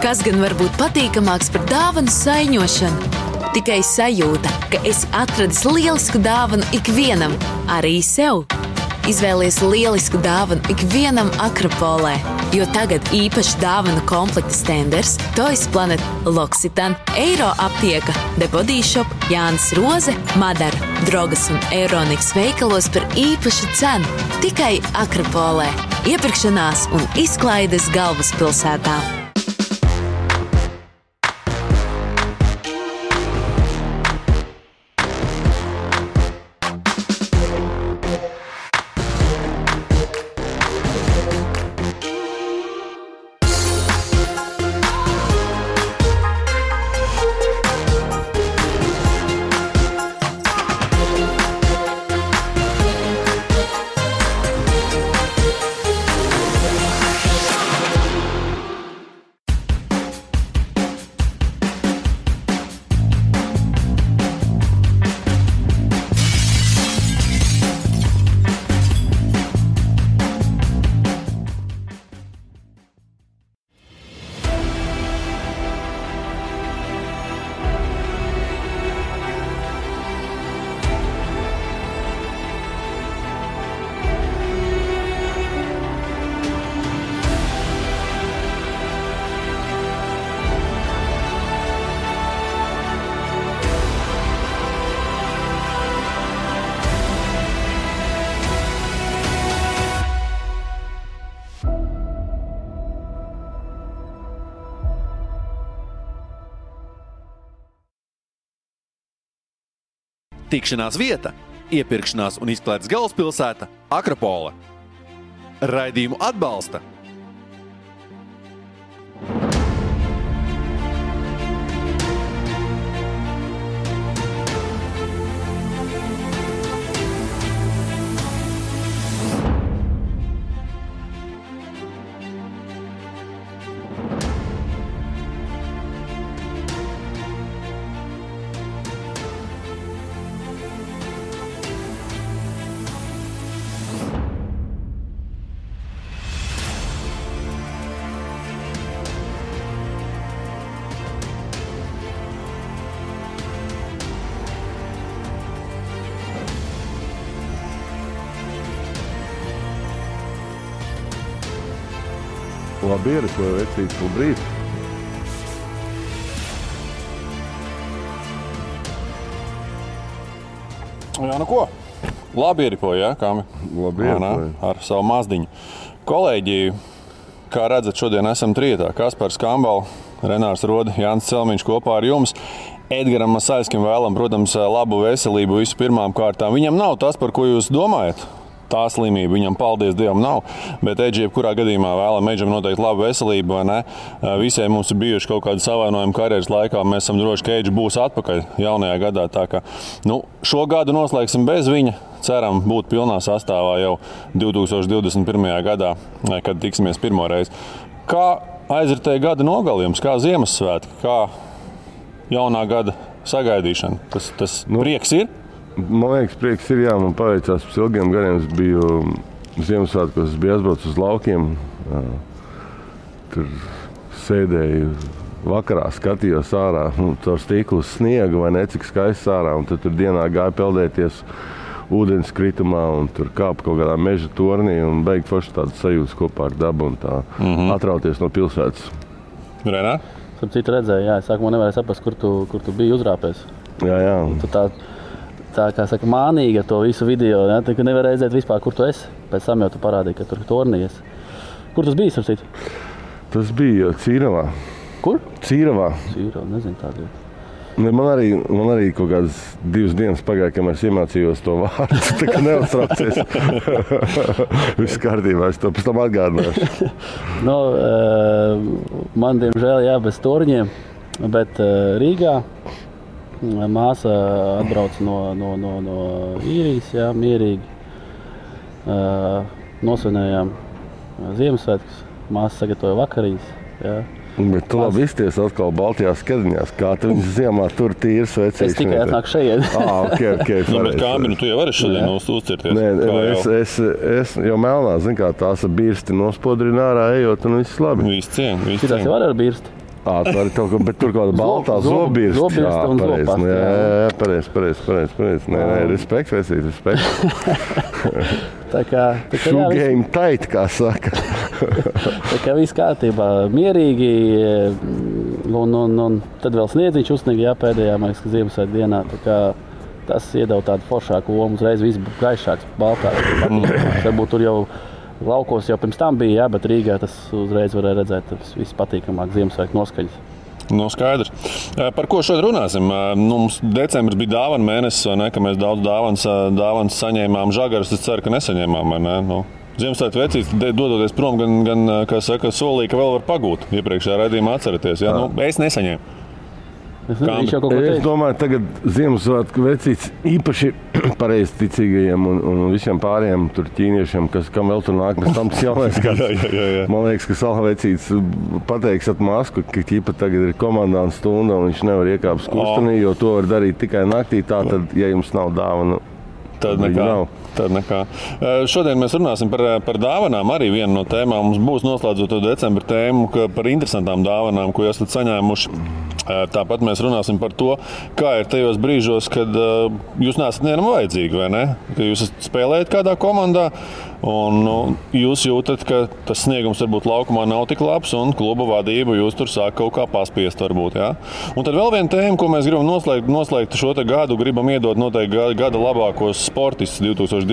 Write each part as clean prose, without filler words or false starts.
Kas gan var būt patīkamāks par dāvanu saiņošanu? Tikai sajūta, ka esi atradis lielisku dāvanu ikvienam, arī sev. Izvēlies lielisku dāvanu ikvienam Akropolē, jo tagad īpaši dāvanu komplekta stenders, Toys Planet, L'Occitane, Eiro aptieka, The Body Shop, Jānis Roze, Madara, Drogas un Euroniks veikalos par īpašu cenu. Tikai Akropolē. Iepirkšanās un izklaides galvaspilsētā. Tikšanās vieta, iepirkšanās un izklaides galvaspilsēta Akropole. Raidījumu atbalsta Labi ierikoja vecīt to brīdi. Jā, nu ko? Labi ierikoja, jā, Kāmi? Labi ierikoja. Ar savu mazdiņu. Kolēģi, kā redzat, šodien esam trietā. Kaspars Kambal, Renārs Rode, Jānis Celmiņš kopā ar jums. Edgaram Masaļskim vēlam, protams, labu veselību visu pirmām kārtām. Viņam nav tas, par ko jūs domājat. Tā slimība viņam, paldies Dievam, nav. Bet Edži, jebkurā gadījumā vēlam Edžam noteikti labu veselību, vai ne? Visiem mums ir bijuši kaut kādi savainojumi karjeras laikā. Mēs esam droši, ka Edži būs atpakaļ jaunajā gadā. Tā kā, šo gadu noslēgsim bez viņa. Ceram būt pilnā sastāvā jau 2021. gadā, kad tiksimies pirmo reizi. Kā aizritēja gada nogalījums, kā Ziemassvētki, kā jaunā gada sagaidīšana? Tas prieks ir? Man liekas, prieks ir, jā, man paveicās pēc ilgiem gadiem. Es biju Ziemassvētkos, es biju aizbraucis uz laukiem. Tur sēdēju vakarā, skatījos ārā, caur stiklu uz sniegu vai necik skaists ārā. Un tad tur dienā gāja peldēties ūdens kritumā un tur kāpa kaut kādā meža tornī un beigt forši tādu sajūtas kopā ar dabu un tā atrauties no pilsētas. Renā? Tur citu redzēju, jā, es sākumā nevarēju saprast, kur tu biji uzrāpēs. Jā. Tā kā saka, mānīgi ar to visu video, ja? Tu nevar redzēt vispār, kur tu esi. Pēc tam jau tu parādīji, ka tur tornījies. Kur tas bija, starp citu? Tas bija Cīravā. Kur? Cīravā. Cīravā, nezinu tādu. Man arī kaut kādas 2 dienas pagāja, kamēr es iemācījos to vārdu. Tā kā neuztraucies. Viss kārtībā, es to pēc tam atgādināšu. Man, diemžēl, jā, bez torņiem, bet Rīgā māsa atbrauca no īrijas, jā, mierīgi. Nosvinējām Ziemassvētkus, māsa sagatavoja vakarīs, jā. Bet tu labi izties atkal Baltijās skadiņās, kā tu viņas ziemā tur tīri svecīši. Es tikai atnāku šeit. Okay, bet Kāmi, tu jau vari šodien uzcirties? Nē, es jau melnā, zin kā, tās ar birsti nospodrina ārā ejot un viss labi. Viss cien. Šitās jau var ar birsti? Tu vari kaut ko, bet tur kaut kāda baltā zobirsta. Zobirsta un zopasta. Jā, pareizi. Nē, respekt, Tā kā Shoe game tight, kā saka. Tā kā viss kārtībā, mierīgi, un tad vēl sniedziņš uzsniga, pēdējā, man liekas, ka Ziemassvētku dienā. Tā kā tas iedeva tādu foršāku lomu, uzreiz viss gaišāks, baltāks. Varbūt tur jau laukos jau pirms tam bija, bet Rīgā tas uzreiz varēja redzēt, tas viss patīkamāk Ziemassvētku noskaņas. Nu, skaidrs. Par ko šodien runāsim? Mums decembris bija dāvana mēnesis, vai ne, ka mēs daudz dāvanas saņēmām. Žagarus es ceru, ka nesaņēmām, vai ne? Ziemassvētku vecītis dodoties prom, gan kā saka, solīja, ka vēl var pagūt. Iepriekšējā raidījumā atceraties. Ja? Es nesaņēmu. Es domāju, tagad Ziemassvētku vecītis īpaši pareizticīgajiem un visiem pārējiem tur ķīniešiem, kam vēl tur nāk, mēs tam tas jaunais gads. Jā. Man liekas, ka Salha vecītis pateiks at masku, ka ķipa tagad ir komandāna stunda un viņš nevar iekāpt skustenī, jo to var darīt tikai naktī, tātad, ja jums nav dāvana, tad nekā. Šodien mēs runāsim par dāvanām. Arī viena no tēmām mums būs noslēdzot to decembra tēmu par interesantām dāvanām, ko esat saņēmuši. Tāpat mēs runāsim par to, kā ir tajos brīžos, kad jūs neesat nevienam vajadzīgi, vai ne? Ka jūs spēlējat kādā komandā un jūs jūtat, ka tas sniegums varbūt laukumā nav tik labs un kluba vadība jūs tur sāk kaut kā paspiest varbūt, jā? Un tad vēl viena tēma, ko mēs gribam noslēgt šo te gadu, gribam iedot noteikti gada labākos sportistus 2020.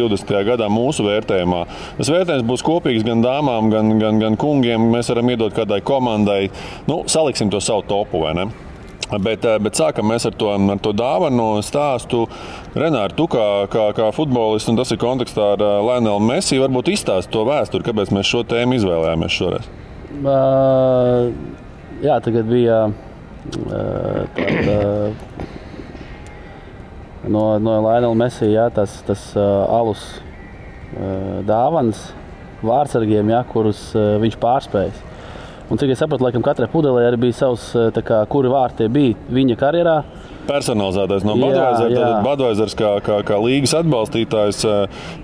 Gadā mūsu vērtējumā. Tas vērtējums būs kopīgs gan dāmām, gan kungiem. Mēs varam iedot kādai komandai. Saliksim to savu topu, vai ne? Bet sākam mēs ar to dāvanu stāstu. Renāri, tu kā futbolists, un tas ir kontekstā ar Lionelu Messi, varbūt izstāsti to vēsturi, kāpēc mēs šo tēmu izvēlējāmies šoreiz? Jā, tagad bija no Lionela Messi, tas alus dāvanas vārdsargiem, kurus viņš pārspējas. Un cik es sapratu, laikam katrai pudelē arī bija savs, kuri vārti bija viņa karjerā. Personalizētais no Budweiser. Tātad Budweisers kā līgas atbalstītājs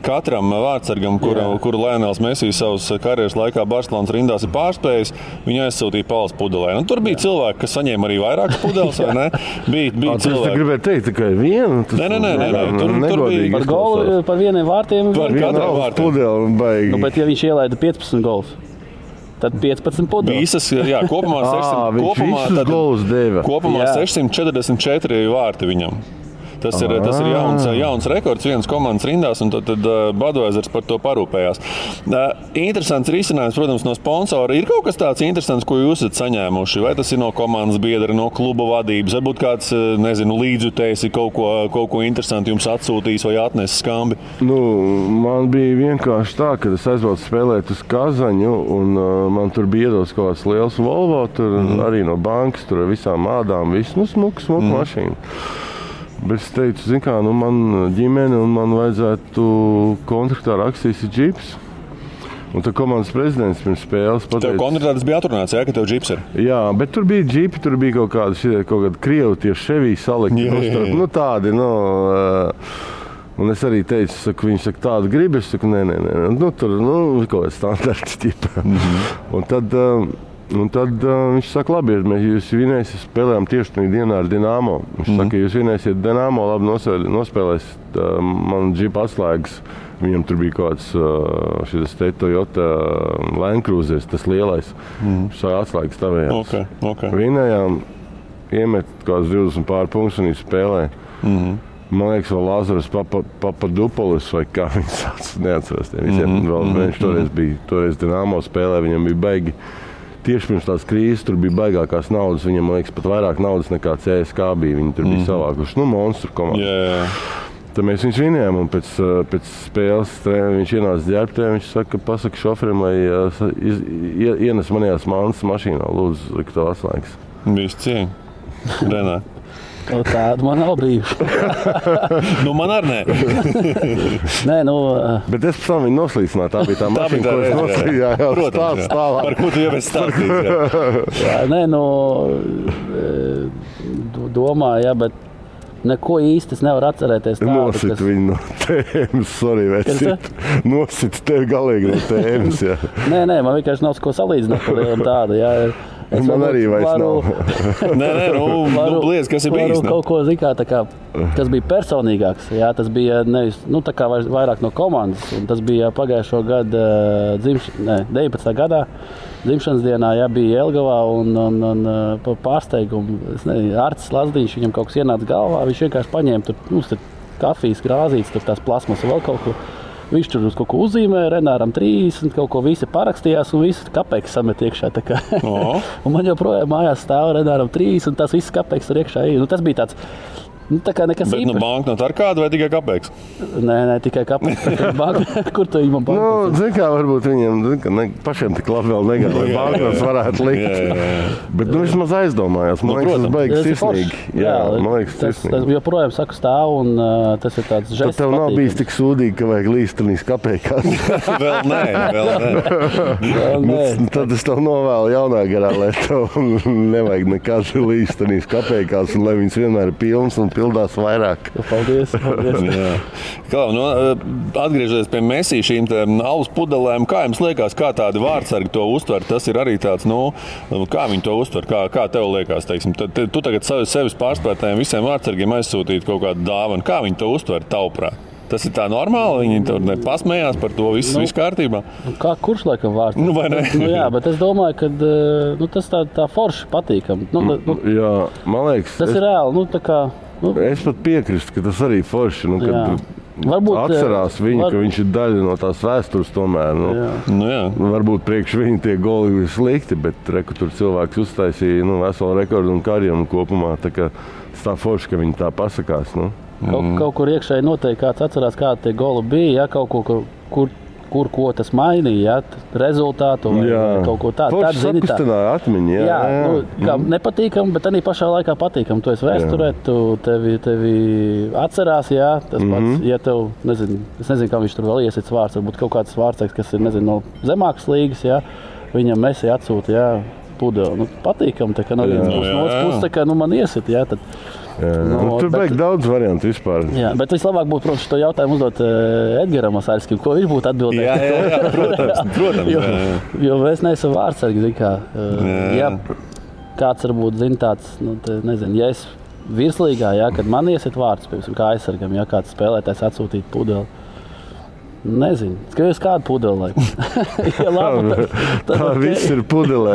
katram vārdsargam, kuru Lionels Messi savas karjeras laikā Barcelonas rindās ir pārspējis, viņu aizsūtīja palas pudelē. Un tur bija cilvēki, kas saņēma arī vairākas pudeles, vai ne? Bija cilvēki. Tu gribēji teikt tikai vienu? Nē. Tur bija par golu, par vieniem vārtiem. Par katram vārtiem. Bet ja viņš ielaida 15 golus, tad 15 pudeles. Visas, kopumā 644 vārti viņam. Tas ir jauns rekords vienas komandas rindās, un tad Budweisers par to parūpējās. Interesants risinājums, protams, no sponsora. Ir kaut kas tāds interesants, ko jūs esat saņēmuši? Vai tas ir no komandas biedra, no kluba vadības? Varbūt kāds, līdzjutējs ir kaut ko interesantu jums atsūtījis vai atnesis skambi? Man bija vienkārši tā, kad es aizbraucu spēlēt uz Kazaņu, un man tur bija iedots kaut kāds liels Volvo, tur arī no bankas, tur ar visām ādām, smuka mašīna. Bet es teicu, man ģimene un man vajadzētu kontraktā rakstīs ir džips. Un tad komandas prezidents pirms spēles pateica... Tev kontraktā tas bija atrunāts, ka tev džips ir? Jā, bet tur bija džipi, tur bija kaut kādi krievi tie Chevy salikti. Tādi, un es arī teicu, viņi saka, tādu gribi, es saku, nē. Tur, kaut kāds standarts ķipa. Un tad viņš saka, labi, ja jūs vinēsiet, spēlējām tieši tajā dienā ar Dinamo. Viņš saka, ja jūs vinēsiet Dinamo, labi nospēlēsiet man džipa atslēgas. Viņam tur bija kaut kāds šis Toyota Land Cruiser, tas lielais. Viņš saka, atslēgas tavējās. Okay. Vinējām, iemet kaut kāds 20 pār punktus un spēlēja. Man liekas, vēl Lazaras Papadupolis vai kā viņš sauc, neatceros tiem visiem. Viņš toreiz Dinamo spēlē, viņam bija baigi. Tieši pirms tās krīzes tur bija baigākās naudas, viņam, man liekas, pat vairāk naudas nekā CSK bija. Viņi tur bija savākuši, monstru komandu. Tad mēs viņus vinējām, un pēc spēles viņš ienāca ģērbtē, viņš saka, pasaka šoferim, lai ienes manījās mantas mašīnā, lūdzu, likt to atslēgas. Viss cieņ. Renā. Tāda man nav brīvs. Man arī nē. Bet es pēc tam viņu noslīcināju. Tā bija tā mašīna, ko es noslīdināju. Protams, par ko tu jau esi stāstījis. Domāju, bet neko īsti es nevaru atcerēties tādu. Nosit viņu no tēmas, sorry, vecīt. Nosit tevi galīgi no tēmas, jā. Nē, man vienkārši nav ko salīdzināt par lielu tādu, jā. Man arī vairs nav. Bliez, kas ir bijis? Kaut ko, kas bija personīgāks. Jā, tas bija nevis, tā kā vairāk no komandas. Un tas bija pagājušo gadu 19. gadā. Dzimšanas dienā bija Jelgavā un pārsteigumu. Artis Lazdiņš, viņam kaut kas ienāca galvā. Viņš vienkārši paņēma tur kafijas krāzītes, tur tās plasmas vēl kaut ko. Viņš tur uz kaut ko uzzīmēja, Renāram 30, kaut ko visi parakstījās un visi kapeikas samet iekšā. Un man joprojām mājās stāv Renāram 30 un tās visas kapeikas tur iekšā. Tas bija tāds, tā kā nekas īpašs. Bet banknota ar kādu vai tikai kapeiks? Nē, tikai kapeiks. Kur tu viņam banknotas? Zin kā, varbūt viņiem pašiem tik labi vēl negāja, lai banknotas varētu likt. Bet vismaz aizdomājās. Man liekas, tas beigas sirsnīgi. Jā, man liekas, sirsnīgi. Tas joprojām saku stāv un tas ir tāds žests. Tad tev nav bijis tik sūdīgi, ka vajag līstenīs kapeikās. Vēl nē. Tad es tev novēlu jaunā garā, lai tev nevajag nekad līstenīs kapeikās un lai viņas vienmēr ir pilns un pildās vairāk. Paldies. Atgriežoties pie Messi šīm alus pudelēm, kā jums liekas, kā tādi vārdsargi to uztver? Tas ir arī tāds, kā viņi to uztver, kā tev liekas, teiksim. Tu tagad sevis pārspētējiem visiem vārdsargiem aizsūtīt kaut kādu dāvanu. Kā viņi to uztver tavuprāt? Tas ir tā normāli, viņi tur pasmējās par to, viss kārtībā. Kurš laikam vārds? Vai ne? Jā, bet es domāju, ka tas tā forši patīkam. Jā, man liekas. Tas ir reāli, Es pat piekrīstu, ka tas arī forši, kad atcerās viņu, ka viņš ir daļa no tās vēstures tomēr. Varbūt priekš viņa tie goli ir slikti, bet tur cilvēks uztaisīja veselu rekordu un karjeru kopumā. Tā forši, ka viņi tā pasakās. Kaut kur iekšēji noteikti kāds atcerās, kādi tie goli bija, kaut ko, ko tas mainīja, rezultātu vai kaut ko tādu. Forši sapistināja atmiņu, nepatīkam, bet arī pašā laikā patīkam. Tu esi vēsturē, tevi atcerās, tas pats, ja tev, es nezinu, kā viņš tur vēl iesits vārds, varbūt kaut kāds vārdsaiks, kas ir, no zemākas līgas, viņam Messi atsūta, pudeli. Patīkam, tā kā no vienas puses, tā kā man iesit, tad. Tur beig daudz variantu vispār. Jā, bet vislabāk būtu, protams, šo jautājumu uzdot Edgaram Masaļskim, ko viņš būtu atbildējis. Jā, protams. Jo es neesmu vārdsargi, ja kāds varbūt zina tāds, ja es virslīgā, kad man iesit vārds, piemēram, kā aizsargam, kāds spēlētājs atsūtīt pudeli. Nezinu, skaties kādu pudeli. Tā viss ir pudelē.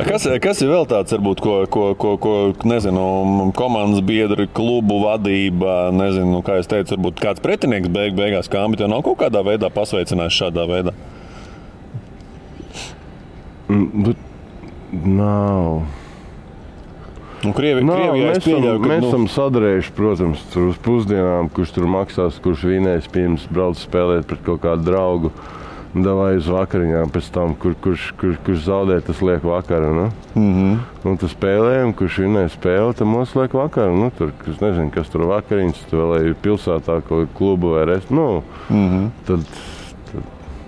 Kas ir vēl tāds, varbūt, ko nezinu, komandas biedri, klubu vadība, nezinu, kā es teicu, varbūt kāds pretinieks beigās Kambi tev nav kaut kādā veidā pasveicinājis šādā veidā? Nav. Mēs esam sadarējuši, protams, uz pusdienām, kurš tur maksās, kurš vinēs pirms brauc spēlēt pret kaut kādu draugu. Davai uz vakariņām pēc tam, kurš zaudē, tas liek vakara. Un tu spēlējam, kurš vinē spēli, tad mums liek vakara. Tur, es nezinu, kas tur vakariņas, tu vēl ir pilsētā kaut klubu vai restu.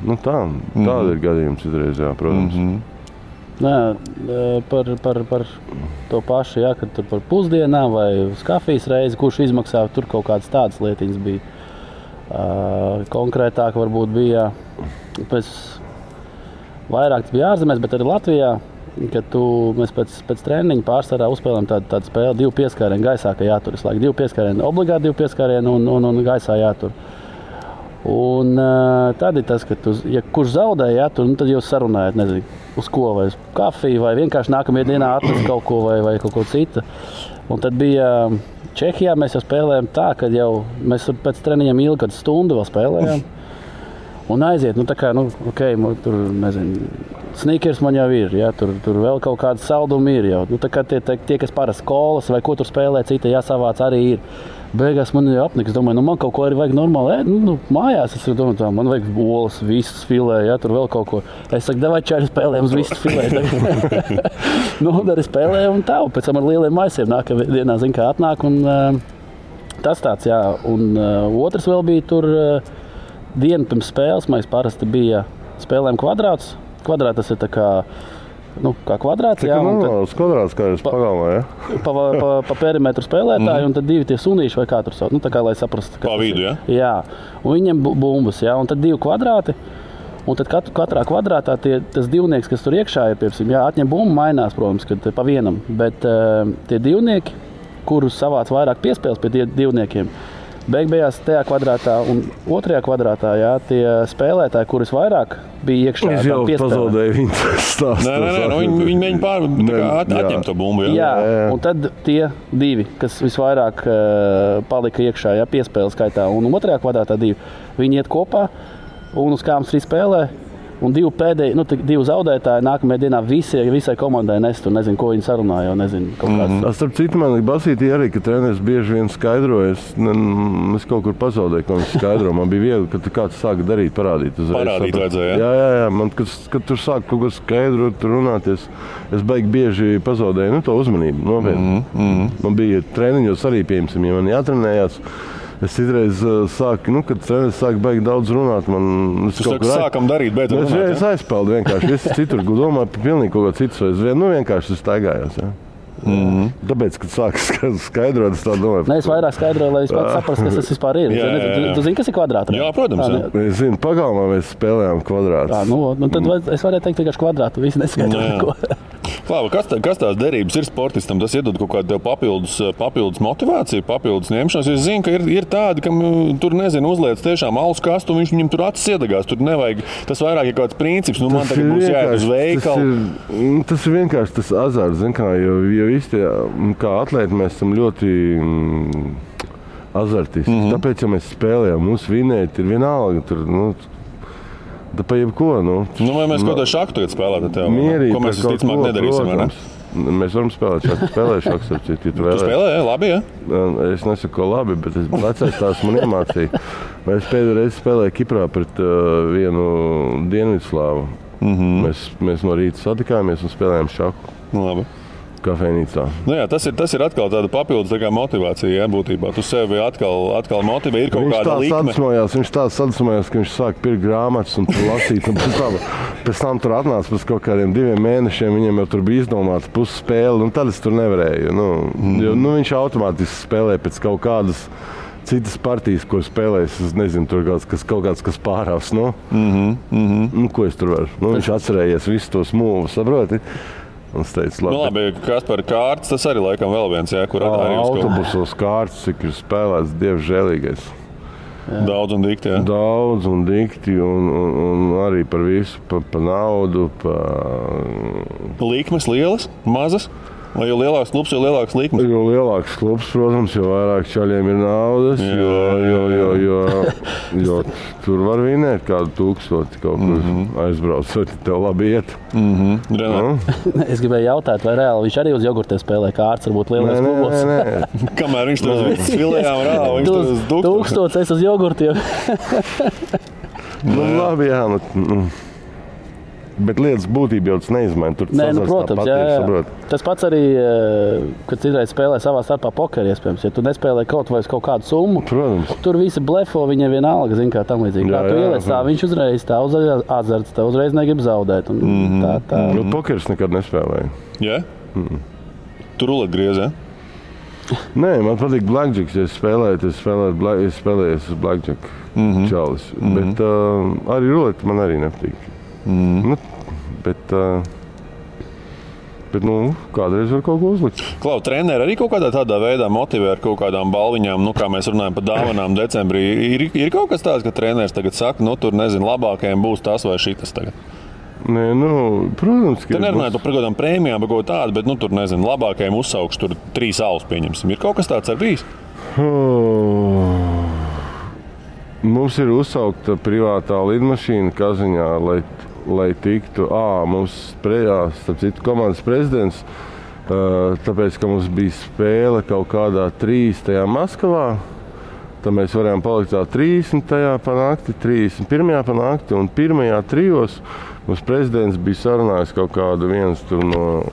Tāda ir gadījums izreiz, protams. Par to pašu, kad tur par pusdienām vai uz kafijas reizi, kurš izmaksā, tur kaut kādas tādas lietiņas bija. Konkrētāk varbūt bija, vairāk tas bija ārzemēs, bet arī Latvijā, kad mēs pēc treniņa pārsvarā uzspēlējam tādu spēli, 2 pieskārienu gaisā, ka jātur visu laiku. 2 pieskārienu, obligāti 2 pieskārienu un gaisā jātur. Un tad ir tas, ka kurš zaudēja, tad jūs sarunājat, nezinu, uz ko, vai uz kafiju, vai vienkārši nākamajā dienā atnest kaut ko vai kaut ko citu. Un tad bija Čehijā, mēs jau spēlējām tā, ka jau mēs pēc treniņiem ilgi kādu stundu vēl spēlējām. Un aiziet, tur, nezinu, sneakers man jau ir, tur vēl kaut kāda salduma ir jau. Tā kā tie, kas parasti skolas vai ko tur spēlē, cita jāsavāc arī ir. Beigās man jau apniks, domāju, man kaut ko arī vajag normāli. Mājās es domāju, man vajag olas, visas filē, tur vēl kaut ko. Es saku, davai čāri spēlējam uz visas filē. Arī spēlējam un tā, un pēc tam ar lieliem maisiem nākamajā dienā, kā atnāk. Un tas tāds, un otrs vēl bija tur dienu pirms spēles, mēs parasti bija spēlējam kvadrāts. Kvadrāts tas ir tā kā kvadrāts. Tā kā normāls kvadrāts, kā jūs pagalmā, Pa perimetru spēlētāji, un tad 2 tie sunīši vai kā tur sauc. Tā kā, lai saprastu. Pa vidu, Jā, un viņiem bumbas, un tad 2 kvadrāti. Un tad katrā kvadrātā tas divnieks, kas tur iekšā ir, piemēram, atņem bumbu, mainās, protams, kad pa vienam. Bet tie divnieki, kurus savāc vairāk piespēles pie divniekiem, beigās tajā kvadrātā un otrajā kvadrātā, tie spēlētāji, kurus vairāk bija iekšā. Es jau pazaudēju viņu stāstu. Nē, viņi mēģina atņemt to bumbu. Jā, un tad tie divi, kas visvairāk palika iekšā, piespēles skaitā, un otrajā kvadrātā divi, viņi iet kopā un uz kādām 3 spēlē. Un divi zaudētāji nākamajā dienā visai komandai nes tur, nezinu, ko viņi sarunāja, nezinu, kaut kāds. Starp citu, man basītī arī, ka treneris bieži vien skaidroja, es kaut kur pazaudēju, ko viņš skaidro. Man bija viegli, ka kāds sāka darīt, parādīt. Parādīt vajadzēja, jā? Jā, man, kad tur sāk kaut ko skaidrot, runāties, es baigi bieži pazaudēju, to uzmanību, nopietni. Man bija treniņos arī, piemēram, ja man jātrenējās. Es citreiz sāku, kad treneris sāk baigi daudz runāt. Sākam darīt, beidzot runāt. Es aizpeldu vienkārši. Es citur domāju par pilnīgi kaut ko citu. Es vienkārši staigājos. Ja? Tāpēc, kad sāku skaidrot, es tā domāju. Nē, es vairāk skaidroju, lai es pats saprastu, kas tas vispār ir. Tu zini, kas ir kvadrātā? Jā, protams. Es zinu, pagalmā mēs spēlējām kvadrātus. Tad es varētu teikt vienkārši kvadrātu. Visi neskaidro neko. Klāva, kas tās derības ir sportistam? Tas iedod kaut kādu papildus motivāciju, papildus ņemšanos. Es zinu, ka ir tādi, kam tur, nezinu, uzliec tiešām alus kastu, un viņam tur acis iedegās. Tur nevajag, tas vairāk ir kaut kāds princips. Man tagad būs jāiet uz veikalu. Tas ir vienkārši tas azarts, zin kā, jo visi tie, kā atlēti, mēs esam ļoti azartisti. Tāpēc, ja mēs spēlējam, mums vinēt ir vienalga. Tur, da pa jebko, vai mēs kaut kādā šaku tagad spēlētu tev? Mierīgi, ko mēs visticamāk nedarīsim, vai ne? Mēs varam spēlēt šāku, spēlēju šaku, Tu spēlē, labi, jā? Es nesaku, ko labi, bet vecais tās man iemācīja. Es pēdējo reizi spēlēju Kiprā pret vienu Dienvidslāvu. Mēs no rīta satikāmies un spēlējām šaku. Labi. Kafejnīcā. Tas ir atkal tāda papildus motivācija, būtībā. Tu sevi atkal motivē, ir kaut kāda likme. Viņš tā sadusmojās, ka viņš sāk pirkt grāmatas un lasīt. Un pēc tam tur atnāca pēc kaut kādiem 2 mēnešiem, viņam jau tur bija izdomāts pusspēle, un tad es tur nevarēju. Jo viņš automātiski spēlē pēc kaut kādas citas partijas, ko spēlēs. Es nezinu, tur kaut kāds, kas pārāvs. Ko es tur varu? Viņš atcerējies visu tos mūvus, saproti? Teicu, labi, kas par kārtas, tas arī laikam vēl viens, kur arī autobusos kārtas, cik ir spēlēts, Dievs žēlīgais. Daudz un dikti, jā? Daudz un dikti, un arī par visu, par naudu, Likmes lielas, mazas? Vai jo lielāks klubs, jo lielāks likmes? Jo lielāks klubs, protams, jo vairāk čaļiem ir naudas, jo tur var vinēt kādu 1000 kaut kur aizbraucot, tev labi iet. Es gribēju jautāt, vai reāli viņš arī uz jogurtiem spēlē kārtas, varbūt lielais klubos? Nē. Kamēr viņš tur uz visas filējām rāva, viņš tur uz 1000 es uz jogurtiem. Labi, jā, bet lietas būtība jau tas neizmaina. Protams, jā. Tas pats arī, kad citreiz spēlē savā starpā pokeri, iespējams. Ja tu nespēlē kaut vai uz kaut kādu summu, protams. Tur visi blefo, viņiem vienalga, zin kā tam līdzīgi. Kā tu ieliec tā, viņš uzreiz tā azarts, tā uzreiz negrib zaudēt. Tā. Pokeris nekad nespēlēja. Jā? Tu rulet griez, jā? Nē, man patīk blackjacks, ja es spēlēju uz blackjack čalis. Bet arī ruleti man arī nepatīk. Bet kādreiz var kaut ko uzlikt. Klau, treneri arī kaut kādā veidā motivē ar kaut kādām balviņām, kā mēs runājam par dāvanām decembrī. Ir kaut kas tāds, ka treneris tagad saka, tur nezinu, labākajiem būs tas vai šitas tagad? Nē, protams, ka ir. Te nerunājot par kaut kādām prēmijām, par kaut tādu, bet tur nezinu, labākajiem uzsaukšu tur 3 alus pieņemsim. Ir kaut kas tāds ar bijis? Mums ir uzsaukta privātā lidmašīna Kaziņā, lai tiktu, mums starp citu komandas prezidents, tāpēc, ka mums bija spēle kaut kādā 30. Maskavā, tad mēs varējām palikt tā 30. pa nakti, 31. pa nakti, un 1. 3. mums prezidents bija sarunājis kaut kādu viens tur no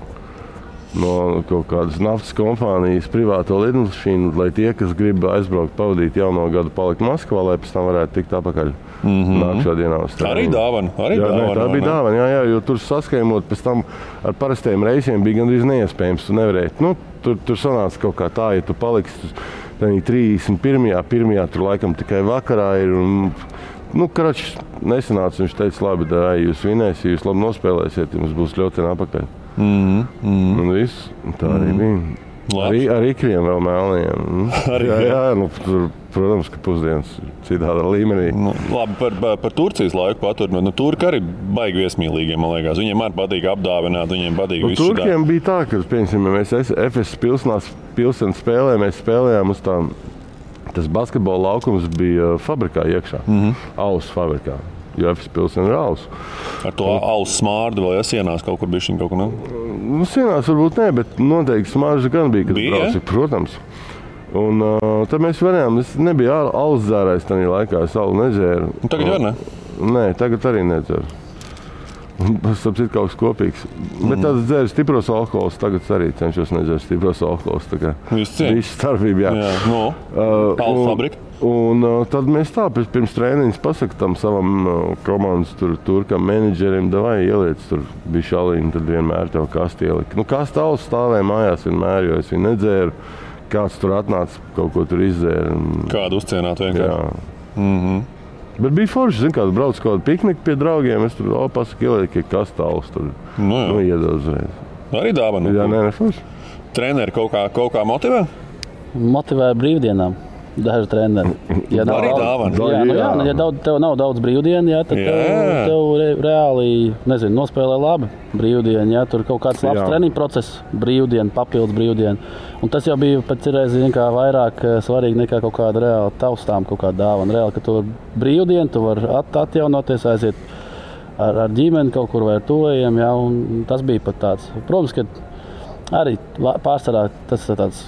kaut kādas naftas kompānijas privāto lidmašīnu, lai tie, kas grib aizbraukt, pavadīt jauno gadu, palikt Maskavā, lai pēc tam varētu tikt atpakaļ nākšā dienā uz treniņu. Arī dāvana. Tā bija dāvana, jā, jo tur saskaimot pēc tam ar parastajiem reisiem bija gandrīz neiespējams, tu nevarēji. Tur sanāca kaut kā tā, ja tu paliksi 31. tur laikam tikai vakarā ir, un Kračs nesanāca, viņš teica, labi, jūs vinēsiet, jūs labi nospēlēsiet, jums būs ļoti apakaļ. Un viss, tā arī bija. Ar ikriem vēl mēlniem. Tur, protams, ka pusdienas citādā līmenī. Labi, par Turcijas laiku paturpinot. Turki arī baigi viesmīlīgi, man liekas. Viņiem arī patīk apdāvināt, viņiem patīk visu šitā. Turkiem bija tā, ka, piemēram, mēs FS pilsētas spēlē, mēs spēlējām uz tām. Tas basketbola laukums bija fabrikā iekšā, Alus fabrikā, jo FS pilsēta ir Alus. Ar to Alus smārdu vēl sienās kaut kur bišķiņ kaut kur, ne? Sienās varbūt ne, bet noteikti smarža gan bija, kad brauci, protams. Un tad mēs varējām, es nebija alus dzērājs tajā laikā, es alu nedzēru. Tagad var, ne? Nē, tagad arī nedzeru. Tas ir kaut kas kopīgs. Bet tāds dzēru stipros alkohols, tagad arī cenšos nedzēru stipros alkohols. Tā kā visu starpību, jā. Alus fabrika. Un tad mēs tā pirms trēniņas pasaka tam savam komandas turkam menedžerim, davai ieliec tur bija šalīni, tad vienmēr tev kasti ielika. Kasta alus stāvēja mājās vienmēr, jo es viņu nedzēru. Kāds tur atnāca, kaut ko tur izdzēra. Kādu uzcienāt vienkārši. Jā. Bet bija forši, zin, kāds brauc kaut kādu pikniku pie draugiem, es tur pasaka ieliek, ka kastāls tur iedod uzreiz. Arī dāvana? Jā, ne forši. Treneri kaut kā motivē? Motivē brīvdienām. Daži treneri. Ja arī dāvana. Ja tev nav daudz brīvdienu, tad tev reāli, nospēlē labi brīvdienu. Ja, tur kaut kāds labs treniņu process, brīvdienu, papildus brīvdienu. Un tas jau bija pēc reizes vairāk svarīgi nekā kaut kāda reāla taustām, kaut kāda dāvana. Reāli, ka tu brīvdienu, tu vari atjaunoties, aiziet ar ģimeni kaut kur vai ar tuvajiem. Ja, un tas bija pat tāds. Protams, ka arī pārsvarā tas ir tāds.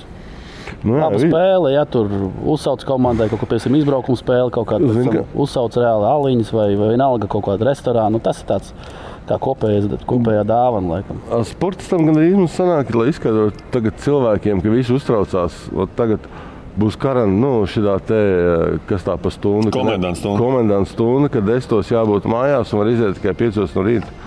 Laba spēle, ja tur uzsauc komandai kaut ko, piemēram, izbraukuma spēle, kaut kāda uzsauc reāli aliņas vai vienalga kaut kādu restorānu. Tas ir tāds kā kopējā dāvana, laikam. Sportistam gan arī mums sanāk, lai izskaidrotu tagad cilvēkiem, ka visi uztraucās, tagad būs šitā te, kas tā pa stundu. Komendants stunda, kad 10 jābūt mājās un var iziet tikai 5 no rīta.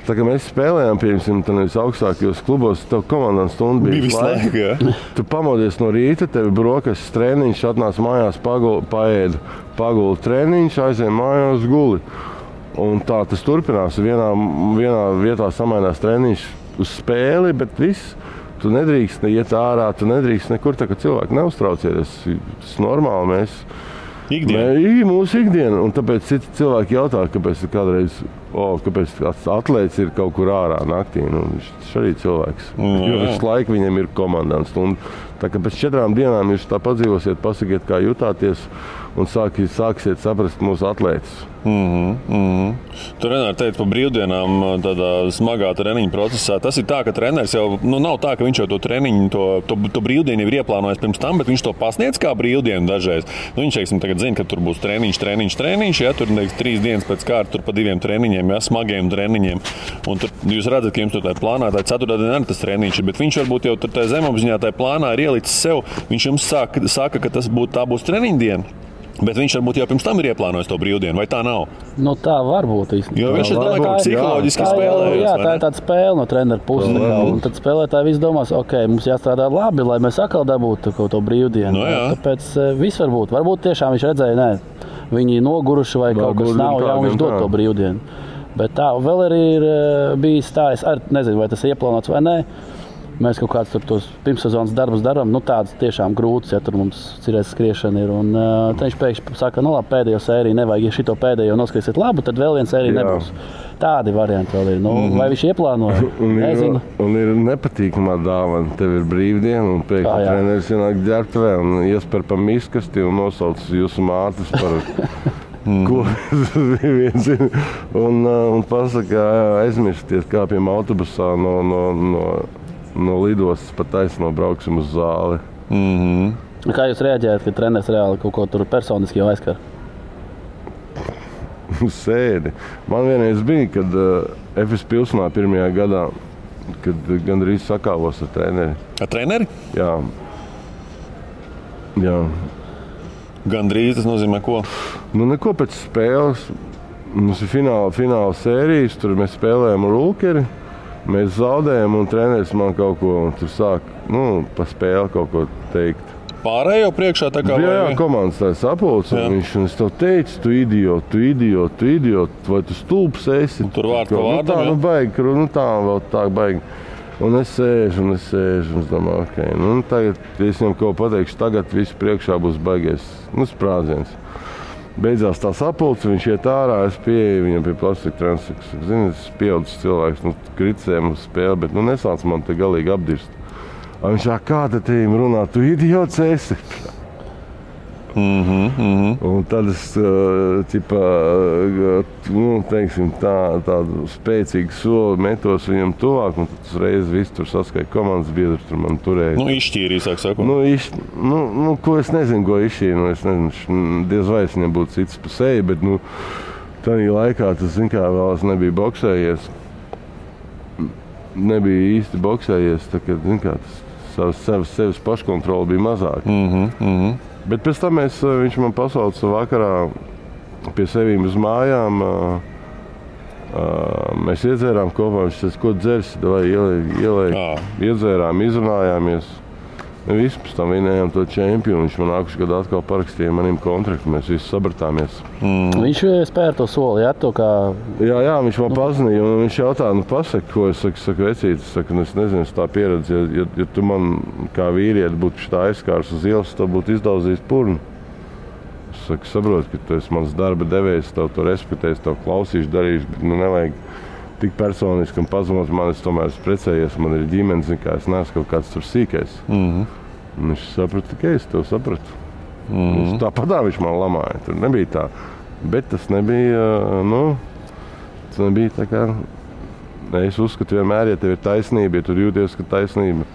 Tā kā mēs spēlējām, piemēram, augstākajos klubos, tev komandants stunda bija visu laiku. Tu pamodies no rīta, tev ir brokastis treniņš, atnāc mājās, paguli treniņš, aizēj mājās, guli. Un tā tas turpinās. Vienā vietā samainās treniņš uz spēli, bet viss. Tu nedrīkst iet ārā, tu nedrīkst nekur, tā kā cilvēki neuztraucies. Tas ir normāli, mūsu ikdiena. Un tāpēc citi cilvēki jautā, kāpēc kādreiz kāpēc atlēts ir kaut kur ārā naktī. Viņš arī cilvēks. Jo visu laiku viņam ir komandants. Tā kā pēc 4 dienām jūs tā padzīvosiet, pasakiet, kā jutāties un sāksiet saprast mūsu atlētus. Tu, Renāri, teici par brīvdienām tādā smagā treniņa procesā. Tas ir tā, ka treneris jau nav tā, ka viņš jau to treniņu, to brīvdienu ir ieplānojis pirms tam, bet viņš to pasniedz kā brīvdienu dažreiz. Viņš, tagad zina, ka tur būs treniņš, ja tur 3 dienas pēc kārta, tur pa 2 treniņiem, ja, smagiem treniņiem. Un tur jūs redzat, ka jums tur tā plānā, tā 4. diena arī tas treniņš, bet viņš varbūt jau tur tā zemapziņā tā plānā ir ielicis sev. Viņš jums saka, ka tā būs treniņa diena. Bet viņš varbūt jau pirms tam ir ieplānojis to brīvdienu, vai tā nav? Tā var būt īstenībā. Jo viņš domāja, ka psiholoģiski spēlējās. Jā, tā ir tāda spēle no treneru puses. Un tad spēlētāji visi domās, mums jāstrādā labi, lai mēs atkal dabūtu to brīvdienu. Tāpēc viss var būt. Varbūt tiešām viņš redzēja, viņi noguruši vai kaut kas nav, un viņš dod to brīvdienu. Bet tā vēl arī ir bijis tā, es arī nezinu, vai tas ir ieplānots vai nē. Mēs kaut kādus tos pirmssezonas darbus darām, tādas tiešām grūtas, ja tur mums cirēs skriešana ir. Un tad viņš pēkšņi saka, labi, pēdējo sēriju nevajag, ja šito pēdējo noskriesiet labu, tad vēl viena sērija nebūs. Tādi varianti vēl ir. Vai viņš ieplānoja? Nezinu. Un ir nepatīkamā dāvana. Tev ir brīvdiena un pēkšņi treneris ienāk ģērbtuvē un iesper pa miskasti un nosauc jūsu mātes par... Ko un pasaka, aizmirsties kāpjam autobusā no lidostas pa taisno brauksim uz zāli. Kā jūs reaģējat, kad treneris reāli kaut ko tur personiski jau aizskar? Sēdi. Man vienreiz bija, kad FS pilsnā 1. gadā, kad gandrīz sakāvos ar treneri. Ar treneri? Jā. Gandrīz tas nozīmē ko? Neko pēc spēles. Mums ir fināla sērijas, tur mēs spēlējam ar Ulkeri. Mēs zaudējam un treneris man kaut ko tur sāk, pa spēli kaut ko teikt. pārējo priekšā? Tā kā jā, komandas tā sapulce. Viņš un es tev teicu, tu idiot, vai tu stulbs esi? Tur vārds pa vārdam, jā? Baigi, tā vēl tā baigi. Un es sēžu, un es domāju, ok, tagad, es viņam kaut pateikšu, tagad viss priekšā būs baigies, sprādziens. Beidzās tā sapulce, viņš iet ārā, es pieeju viņam pie plastika transeks. Zini, es pieaudzis cilvēks, kriticēm uz spēli, bet nesāc man te galīgi apdirst. Viņš kā te tiem runā, tu idiots esi? Un tad es, teiksim, tādu spēcīgu soli metos viņam tuvāk, un tad uzreiz viss tur saskaita komandas biedrs, tur man turēja. Izšķīrīja, sāk sakot. Ko es nezinu, ko izšķīrīja, es nezinu, diez vai es viņam būtu cits pa seju, bet, tādā laikā tas, vēl es nebiju boksējies. Nebija īsti boksējies, tā kā, tas sevis paškontrola bija mazāk. Bet pēc tam viņš man pasauca vakarā pie sevīm uz mājām. Mēs iedzērām kopā, viņš teica, ko dzersi, vai iedzērām, izrunājāmies. Visi pēc tam vinējām to čempionu. Viņš man nākuši gadu atkal parakstīja manim kontraktu, mēs visi sabratāmies. Viņš spēra to soli, jā, to kā... Jā, viņš man pazinīja, un viņš jautā, pasaka, ko es saku, vecīt, es nezinu, es tā pieredzi, ja tu man kā vīrieti būtu šitā aizskārs uz ielas, tev būtu izdauzījis purnu. Es saku, saprotu, ka tu esi mans darba devējs, tev to respektēs, tev klausīšu, darīšu, bet nevajag tik personiski un pazemot man, es tomēr esmu precējies, man ir ģimenes, es neesmu kaut kāds tur sīkais. Viņš saprata, ka es tev sapratu. Tāpat viņš man lamāja, tur nebija tā. Bet tas nebija, tas nebija tā kā, es uzskatu vienmēr, ja tev ir taisnība, ja tu jūties, ka taisnība,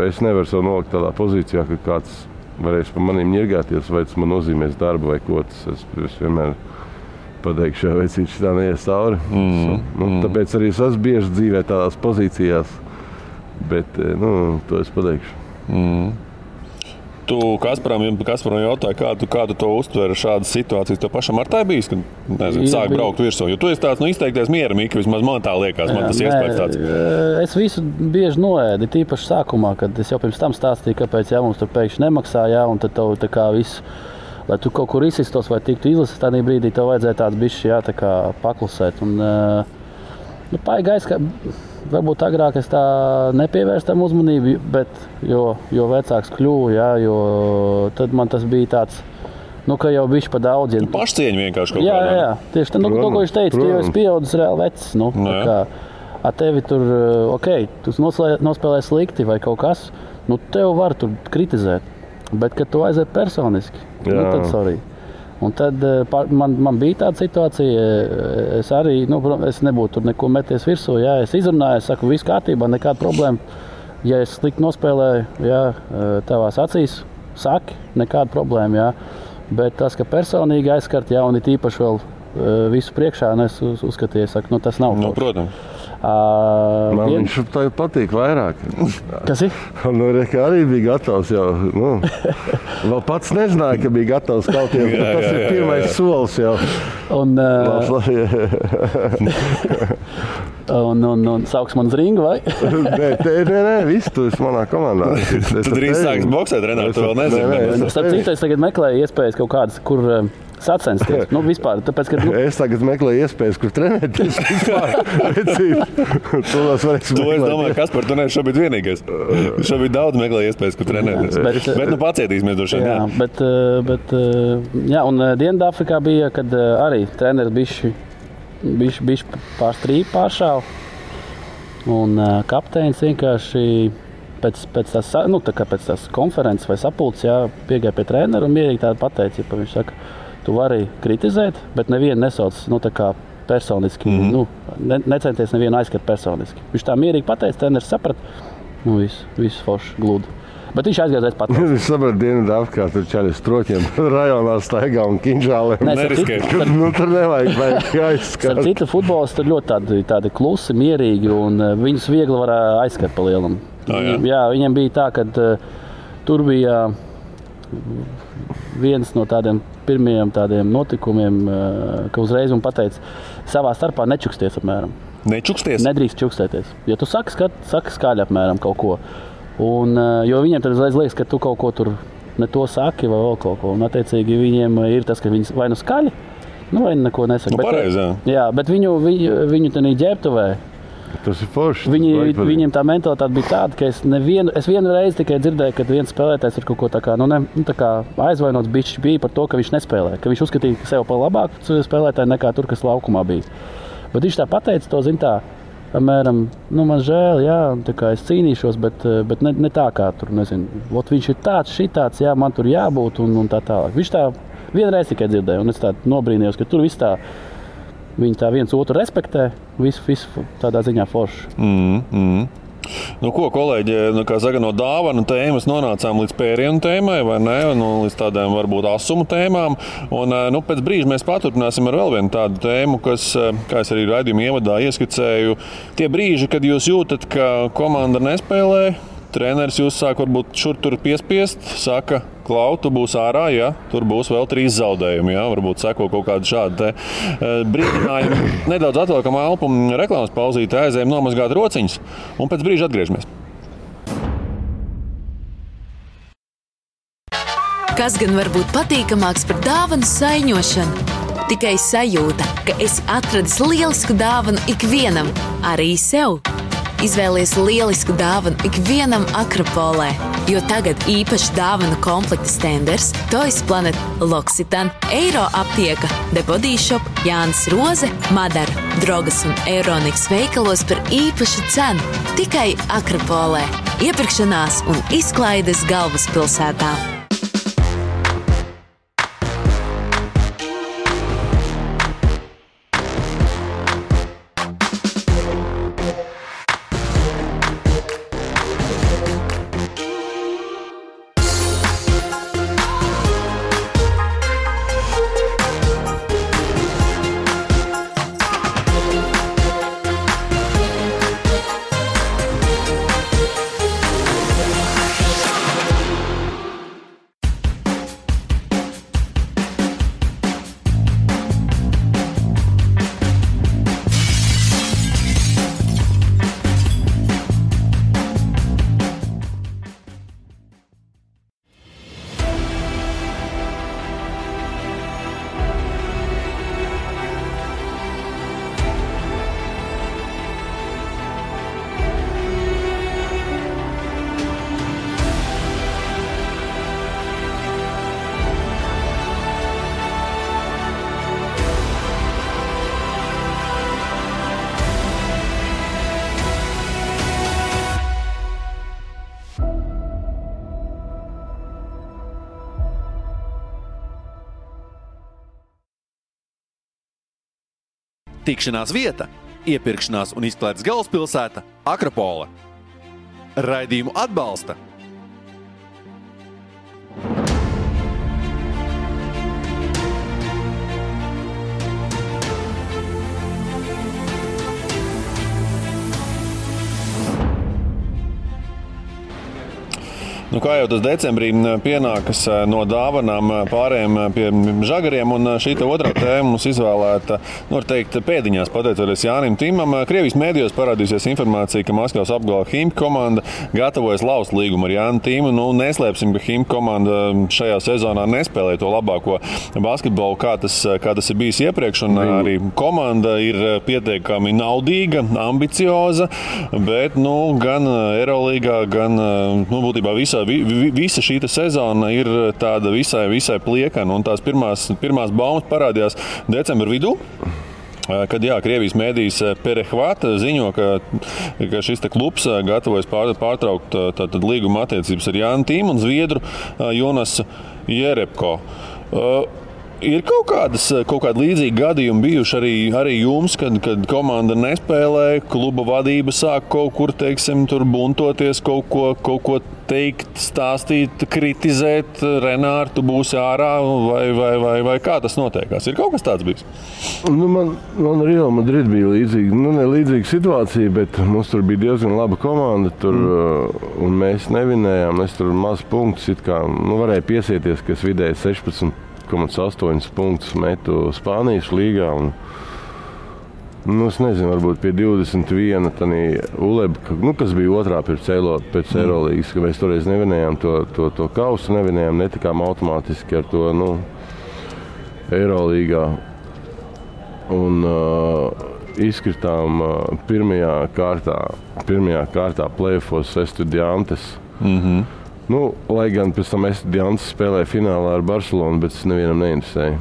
es nevaru sev nolikt tādā pozīcijā, ka kāds varēs par maniem ņirgāties, vai tas man nozīmēs darbu vai ko, es vienmēr pateikšu, ja vecīt šitā neies cauri. Tāpēc arī es esmu bieži dzīvē tādās pozīcijās, bet, to es pateikšu. Tu Kasparam jautāji, kā tu to uztver šādas situācijas? Tev pašam ar tā bijis, kad, sāk braukt virsū? Jo tu esi tāds, izteikties mieramīgi, vismaz man tā liekas, man tas iespējas tāds. Es visu bieži noēdu, tīpaši sākumā, kad es jau pirms tam stāstīju, kāpēc mums tur pēkšņi nemaksā, un tad tev tā kā viss, lai tu kaut kur izsistos vai tiktu izlases, tādā brīdī tev vajadzēja tāds bišķi paklusēt. Paigais, ka varbūt agrāk es tā nepievērstu tam uzmanību, bet jo vecāks kļuvu, jo tad man tas bija tāds, ka jau bišķi pa daudz. Pašcieņa vienkārši kaut kādā. Jā, tieši tā, ko viņš teica, tu jau esi pieaudzis reāli vecs. Tevi tur, tu nospēlēji slikti vai kaut kas, tev var tur kritizēt. Bet, kad tu aiziet personiski, tad sorry. Un tad man bija tāda situācija, es arī, es nebūtu tur neko meties virsū, es izrunāju, es saku, viss kārtībā, nekāda problēma. Ja es slikti nospēlēju, tavās acīs, saki, nekāda problēma, Bet tas, ka personīgi aizskart, un ir īpaši vēl visu priekšā, un es uzskatīju, saku, tas nav. Protams. Man viņš patīk vairāk. Kas ir? Arī bija gatavs jau. Vēl pats nezināja, ka bija gatavs kauties. Tas ir pirmais solis jau. Un sauks man uz ringu, vai? Nē, viss tu esi manā komandā. Tu drīz sāks boksēt, Renāri, tu vēl nezini. Starp citu, es tagad meklēju iespējas kaut kādas, kur sacensties. Vispār, tāpēc, ka, Es tagad meklēju iespējas, kur trenēties vispār. To es domāju, Kaspar, tu neesi šobrīd vienīgais. Šobrīd daudz meklēju iespējas, kur trenēties. Bet pacietīsimies droši vien. Bet un Dienvidāfrikā bija, kad arī treneris bišķi pāršāva. Un kapteinis vienkārši pēc tās konferences vai sapulces piegāja pie trenera un mierīgi tādu pateica, ja viņš saka, tu vari kritizēt, bet nevienu nesauc personiski. Necenties nevienu aizskart personiski. Viņš tā mierīgi pateica, treneris saprata, viss forši gludi. Bet viņš aizgājās pats. Viņš saprata Dienvidāfrikā, tur čaļi stroķiem rajonā staigā un kinžāliem. Tur nevajag aizskart. Ar citu futbolistu tur ļoti tādi klusi, mierīgi, un viņus viegli var aizskart pa lielam. Viņiem bija tā, ka tur bija viens no tādiem pirmajiem tādiem notikumiem, ka uzreiz man pateica, savā starpā nečuksties apmēram. Nečuksties? Nedrīkst čukstēties. Ja tu saki skaļi apmēram kaut ko, Un, jo viņiem tad uzreiz liekas, ka tu kaut ko tur ne to saki vai vēl kaut ko. Un attiecīgi viņiem ir tas, ka viņi vai nu skaļi, vai neko nesaka. Pareizi, jā, bet viņu tenī ģērbtuvē. Tas ir forši. Viņiem tā mentalitāte bija tāda, ka es vienu reizi tikai dzirdēju, kad viens spēlētājs ir kaut ko tā kā aizvainots bišķi bija par to, ka viņš nespēlē. Ka viņš uzskatīja sev par labāku spēlētāju nekā tur, kas laukumā bija. Bet viņš tā pateica to, zin tā, apmēram, man žēl, jā, tā kā es cīnīšos, bet ne tā kā tur, nezinu. Viņš ir tāds, šitāds, jā, man tur jābūt un tā tālāk. Viņš tā vienreiz tikai dzirdēja, un es tā nobrīnījos, ka tur viss tā, viņi tā viens otru respektē, visu tādā ziņā forši. Nu, ko, kolēģi, kā saka, no dāvanu tēmas nonācām līdz pērienu tēmai, vai ne? Līdz tādām varbūt asumu tēmām. Un pēc brīža mēs paturpināsim ar vēl vienu tādu tēmu, kas, kā es arī raidījuma ievadā ieskicēju, tie brīži, kad jūs jūtat, ka komanda nespēlē, treneris jūs sāk varbūt šur tur piespiest, saka, Klau, tu būs ārā, ja tur būs vēl 3 zaudējumi, ja varbūt seko kaut kādu šādu brīdinājumu. Nedaudz atliekam elpu, reklāmas pauzīti, aizējam nomazgāt rociņas un pēc brīža atgriežamies. Kas gan var būt patīkamāks par dāvanu saiņošanu? Tikai sajūta, ka esi atradis lielisku dāvanu ikvienam, arī sev. Izvēlies lielisku dāvanu ikvienam Akropolē, jo tagad īpaši dāvanu komplekta Stenders, Toys Planet, L'Occitane, Eiro aptieka, The Body Shop, Jānis Roze, Madara, Drogas un Euroniks veikalos par īpašu cenu. Tikai Akropolē. Iepirkšanās un izklaides galvaspilsētā. Tikšanās vieta, iepirkšanās un izklaides galvaspilsēta Akropole. Raidījumu atbalsta Nu, kā jau tas decembrī pienākas no dāvanām pārējiem pie žagariem, un šī otrā tēma mums izvēlēta, var teikt, pēdiņās, pateicoties Jānim Timam. Krievijas mēdījos parādīsies informācija, ka Maskavas apgala Himki komanda gatavojas laust līgumu ar Jānu Timu. Nu, neslēpsim, ka Himki komanda šajā sezonā nespēlē to labāko basketbolu, kā tas ir bijis iepriekš, un arī komanda ir pietiekami naudīga, ambicioza, bet gan Eurolīgā, gan būtībā visa šī sezona ir tāda visai pliekana, un tās pirmās baumas parādījās decembra vidū. Kad Krievijas mēdījis Perehvat ziņo, ka šis klubs gatavojas pārtraukt līguma attiecības ar Jānu Timu un zviedru Jonasu Jerebko. Ir kaut kādi līdzīgi gadījumi bijuši arī jums, kad komanda nespēlē, kluba vadība sāk kaut kur, teiksim, tur buntoties, kaut ko teikt, stāstīt, kritizēt, Renār, tu būsi ārā, vai kā tas notiekās? Ir kaut kas tāds bijis? Man Real Madrid bija līdzīga situācija, bet mums tur bija diezgan laba komanda, un mēs nevinējām, es tur maz punktus, varēja piesieties, ka es vidēji 16,8 punktus metu Spānijas līgā. Nu, es nezinu, varbūt pie 21. Ulebka, kas bija otrā pēc Eirolīgas, ka mēs toreiz nevinējām to kausu, netikām automātiski ar to Eirolīgā. Un izkritām pirmajā kārtā play-offos Estudiantes. Lai gan pēc tam Estudiantes spēlēja finālā ar Barcelonu, bet es nevienam neinteresēju.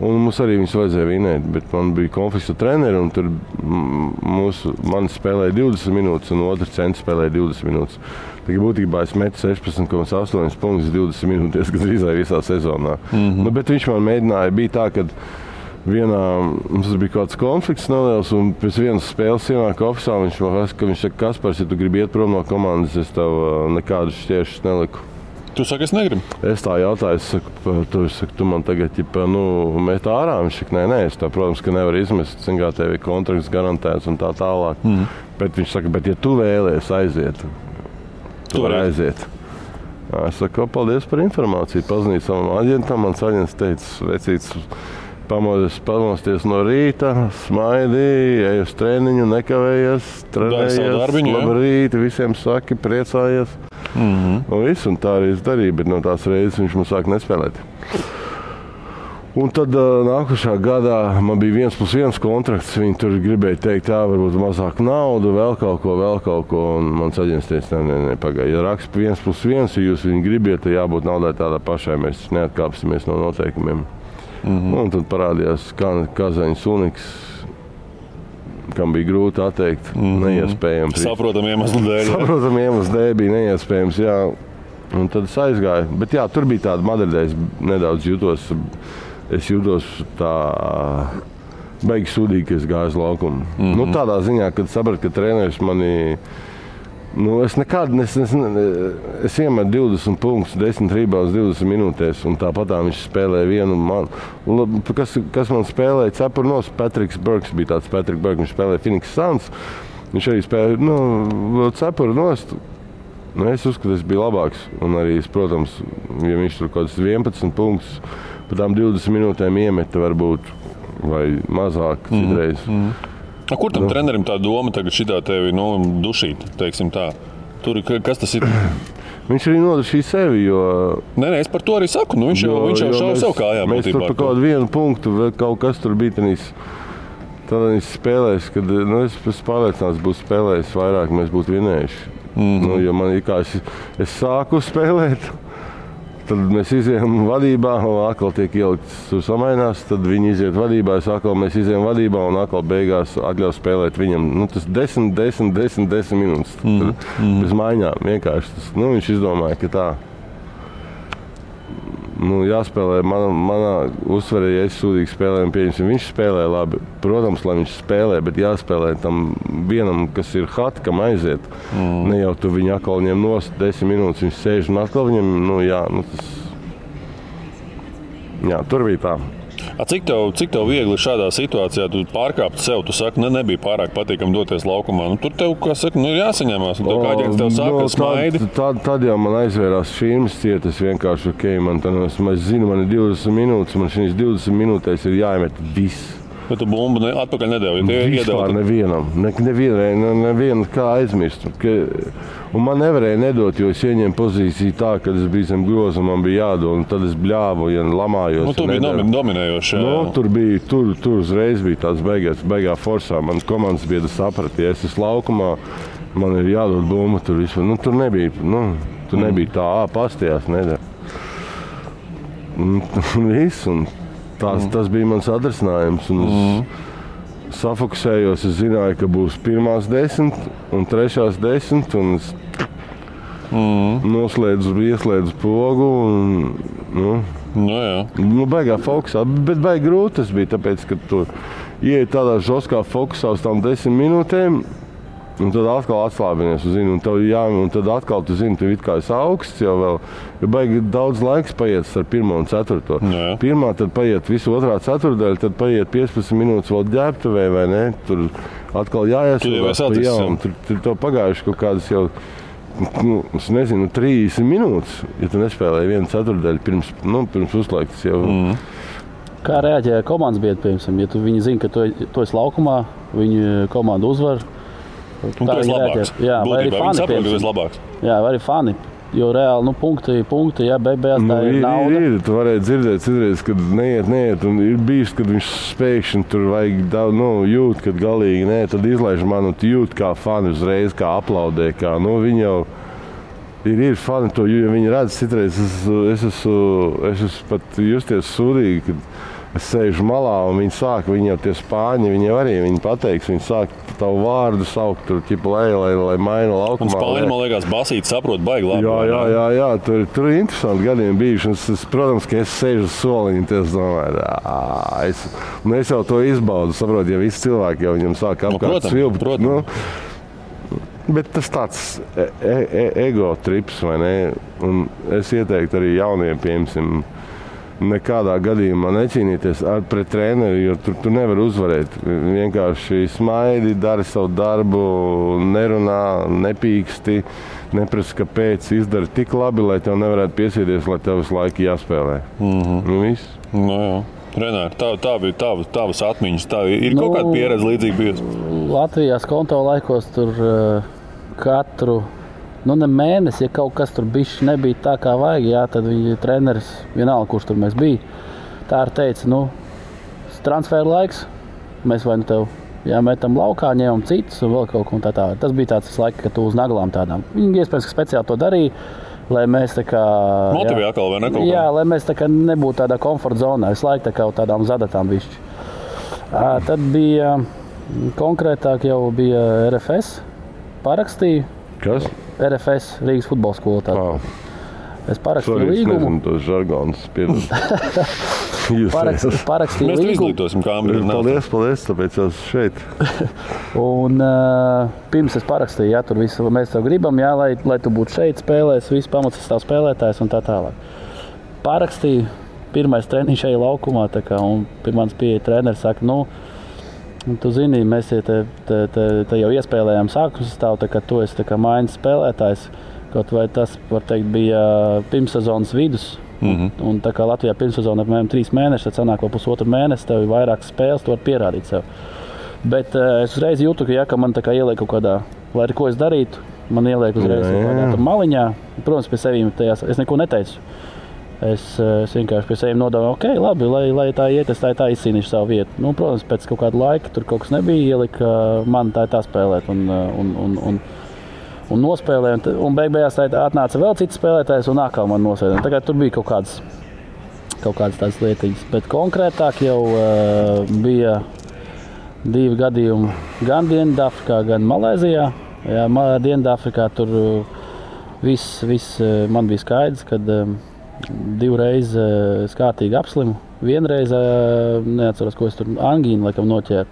Un mums arī viņus vajadzēja vinēt, bet man bija konflikts ar treneri, un tur man spēlēja 20 minūtes, un otrs centrs spēlēja 20 minūtes. Tā būtībā es metu 16,8 punktus 20 minūtes, kas drīzāk visā sezonā. Bet viņš man mēģināja, bija tā, ka mums bija kaut kāds konflikts neliels, un pēc vienas spēles ienāk ofisā, viņš saka, Kaspars, ja tu gribi iet prom no komandas, es tev nekādus šķēršus neliku. Tu saki, es negribu? Es tā jautāju, tu man tagad met ārā. Viņš saka, nē, es tā, protams, ka nevar izmest, kā tev ir kontrakts garantēts un tā tālāk. Bet viņš saka, bet ja tu vēlies aiziet, tu vari aiziet. Es saku, paldies par informāciju, pazinīju savam aģentam, mans aģents teica, vecīts, pamosties no rīta, smaidīji, ej uz treniņu, nekavējies, trenējies, labrīt, visiem saki, priecājies. Un tā arī es darīju, bet no tās reizes viņš mums sāk nespēlēt. Un tad nākošā gadā man bija 1+1 kontrakts, viņi tur gribēja teikt, varbūt mazāk naudu, vēl kaut ko, un mans aģents teica, nē, pagaidi, ja raksta 1+1, ja jūs viņu gribiet, tad jābūt naudai tādā pašai, mēs neatkāpsimies no noteikumiem. Un tad parādījās Kazaņas Uniks, kam bija grūti atteikt, neiespējams. Saprotam iemeslu dēļ bija neiespējams, jā. Un tad es aizgāju. Bet jā, tur bija tāda Madridē, es nedaudz jūtos tā baigi sūdīgi, ka es gāju uz laukumu. Tādā ziņā, kad sapratu, ka treneris mani... Es iemetu 20 punktus, 10 rebounds 20 minūtēs, un tāpat viņš spēlēja vienu man. Kas man spēlēja cepuru nos, Patriks Burks bija tāds Patrick Burks, viņš spēlēja Phoenix Suns. Viņš arī spēlēja cepuru nost. Es uzskatu, es biju labāks, un arī, protams, ja viņš tur kaut kāds 11 punktus, pa tām 20 minūtēm iemeta varbūt, vai mazāk citreiz. Kur tam trenerim tā doma tagad šitā tevi dušīt, teiksim tā? Tur, kas tas ir? Viņš arī nodušīja sevi, jo... Nē, es par to arī saku, viņš jau šauja sev kājām. Mēs tur par kaut vienu punktu, kaut kas tur bija tādās spēlēs, kad es pārliecināts būtu spēlējis vairāk, mēs būtu vinējuši. Jo man es sāku spēlēt. Tad mēs izejam vadībā, un atkal tiek ielikts, tur samainās, tad viņi iziet vadībā, mēs izejam vadībā, un atkal beigās atļaus spēlēt viņam. Tas 10 minūtes. Bez maiņām vienkārši. Viņš izdomāja, ka tā jāspēlē. Manā uzsverē, ja es sūdīgi spēlēju, pieņemsim, viņš spēlē labi. Protams, lai viņš spēlē, bet jāspēlē tam vienam, kas ir hot, kam aiziet. Ne jau tu viņu atkal ņem nost 10 minūtes, viņš sēž un atkal viņam, tur bija tā. Cik tev viegli šādā situācijā tu pārkāpt sev, tu saki, nebija pārāk patīkami doties laukumā. Tur tev, kā saka, ir jāsaņemās, un tev kāds tev saka, smaidi. Tad jau man aizvērās šīm cietas vienkārši, es zinu, man ir 20 minūtes, man šīs 20 minūtēs ir jāiemet viss. Bet tu bumbu atpakaļ nedevi, Vispār nevienam. Nevienu kā aizmirst. Un man nevarēja nedot, jo es ieņēmu pozīciju tā, kad es biju zem groza, man bija jādod, un tad es bļāvu, lamājos. Tu biji dominējoši. Tur uzreiz bija tāds beigā forsā. Mans komandas biedrs saprata, ja es esmu laukumā, man ir jādod bumba tur vispār. Tur nebija tā, pastījās, nedara. Viss, un tas bija mans atrisinājums. Es safokusējos, es zināju, ka būs pirmās 10 un trešās 10, un es ieslēdzu pogu. Baigā fokusā, bet baigi grūti tas bija, tāpēc, ka tu ieej tādā žoskā fokusā uz tām 10 minūtēm, un tad atkal atslābinies, un tad atkal tu zini, tu it kā esi augsts jau vēl, jo baigi daudz laiks paiet ar 1. un 4. Pirmā, tad paiet visu otrā ceturdaļa, tad paiet 15 minūtes vēl ģērbtuvē, vai ne? Tur atkal jāiesūdās pa jaunu. Tur to pagājuši kaut kādas jau, es nezinu, 30 minūtes, ja tu nespēlēji 1 ceturdaļu pirms uzlaikas jau. Kā reaģēja komandas biedri, piemēram, ja viņi zina, ka tu esi laukumā, viņu komanda uzvar? Un tu esi labāks. Jā, vai arī Būtībā viņi saprot, ka tu esi labāks. Jā, vai arī fani. Jo reāli, punkti, jā, beigās tā ir nauda. Tu varēji dzirdēt citreiz, kad neiet, un ir bijis, kad viņš spēkšņi tur vajag daudz, jūt, kad galīgi nē, tad izlaiž man, un tu jūt kā fani uzreiz, kā aplaudē, kā, viņi jau ir fani to, jo viņi redz citreiz, es esmu pat justies sūdīgi, kad es sēžu malā, un viņi jau tie spāņi, viņi jau arī, viņi pateiks, viņi sāk tavu vārdu saukt, tur ķipa lai maina laukumā. Un spāņi, man liekas, basīt saprot baigi labi. Jā, tur ir interesanti gadiem bijuši, un protams, ka es sēžu uz soliņu, un es domāju, es jau to izbaudu, saprotu, ja visi cilvēki jau viņam sāk apkārt svilpt. Bet tas tāds ego trips, vai ne? Un es ieteiktu arī jauniem, piemēram, nekādā gadījumā necīnīties pret treneri, jo tu nevari uzvarēt. Vienkārši smaidi, dari savu darbu, nerunā, nepīksti, neprasa, kāpēc izdari tik labi, lai tev nevarētu piesieties, lai tev visu laiku jāspēlē. Viss. Jā. Renāri, tā bija tavas atmiņas. Tā ir kaut kāda pieredze līdzīga bijusi? Latvijās konto laikos tur katru ne mēnesi, ja kaut kas tur bišķi nebija tā, kā vajag, jā, tad viņi treneris, vienalga, kurš tur mēs bija, tā arī teica, transfer laiks, mēs vai tev metam laukā, ņemam citus un vēl kaut ko un tā. Tas bija tāds laiks, ka tu uz naglām tādām. Viņi iespējams, ka speciāli to darīja, lai mēs tā kā... Motivē atkal vai ne kaut kā? Jā, lai mēs tā kā nebūtu tādā komforta zonā, visu laiku tā kā tādām zadatām bišķi. Tad bija, konkrētāk jau bija RFS, parakstīju. Kas? RFS, Rīgas futbola skola. Es parakstīju līgumu. Es nezinu tos žargonus, piedod. Parakstīju mēs līgumu. Mēs izglītosim kameru. Paldies, tāpēc esmu šeit. Un pirms es parakstīju, tur visu mēs tev gribam, lai tu būtu šeit spēlēs, visu pamats stāv spēlētājs un tā tālāk. Parakstīju, pirmais treniņš šajā laukumā, un pirmans pieeja treneris saka, tu zini, mēs te jau iespēlējām sākuma sastāvu, ka tu esi maiņas spēlētājs. Kaut vai tas, var teikt, bija pirmssezonas vidus. Un tā kā Latvijā pirmssezona apmēram 3 mēneši, tad sanāk vēl pusotru mēnesi, tev ir vairākas spēles, tu vari pierādīt sev. Bet es uzreiz jūtu, ka man ieliek kaut kādā, lai arī ko es darītu, man ieliek uzreiz kaut kādā maliņā. Protams, pie sevīm tajās es neko neteicu. Es vienkārši pie sevīm nodomāju, ok, labi, lai tā iet, es tā izcīnīšu savu vietu. Protams, pēc kaut kāda laika tur kaut kas nebija, ielika man tā spēlēt un nospēlēja. Un beigās atnāca vēl cits spēlētājs un atkal man nosēdēja. Tagad tur bija kaut kādas tādas lietiņas. Bet konkrētāk jau bija 2 gadījumi gan Dienvidāfrikā, gan Malaizijā. Jā, Dienvidāfrikā tur viss man bija skaidrs, kad 2 reizes kārtīgi apslimu. Vienreiz, neatceros, ko es tur angīnu laikam noķēru.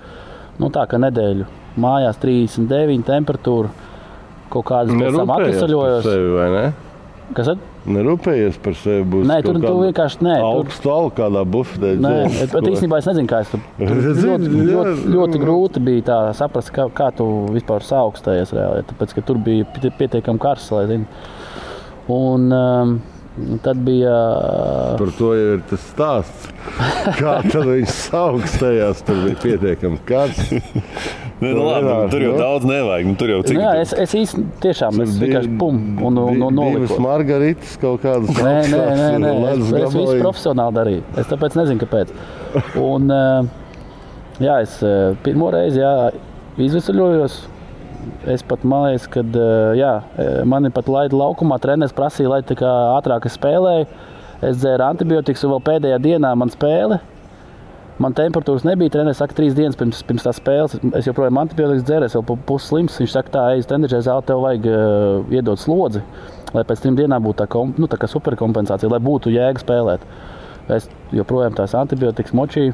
Tā kā nedēļu mājās 39 temperatūra. Kaut kādas pēc tam atvesaļojos. Kas tad? Nerūpējies par sevi, būs nē, tur vienkārši nē. Augstu algu kādā bufetē. Nē, bet īstenībā es nezinu, kā es tur. Ļoti grūti bija tā saprast, kā tu vispār saaugstējies reāli. Tāpēc, ka tur bija pietiekami karsts, lai zinu. Un tad bija... Par to jau ir tas stāsts. Kā tad viņš saaugstējās, tur bija pietiekami karsts. Tur jau daudz nevajag. Tur jau cik... Es īsti tiešām vienkārši un noliku. 2 margaritas kaut kādas. Nē. Es visu profesionāli darīju. Es tāpēc nezinu, kāpēc. Un es pirmo reizi izvesaļojos. Es pat man liekas, kad mani pat laida laukumā, treneris prasīja, lai tā kā ātrāk es spēlēju. Es dzēru antibiotikas un vēl pēdējā dienā man spēle. Man temperatūras nebija, treneris saka 3 dienas pirms tās spēles. Es joprojām antibiotikas dzēru, es vēl pusslims. Viņš saka, tā, ej uz trenižera zāli, tev vajag iedot slodzi, lai pēc 3 dienām būtu tā kā superkompensācija, lai būtu jēga spēlēt. Es joprojām tās antibiotikas močīju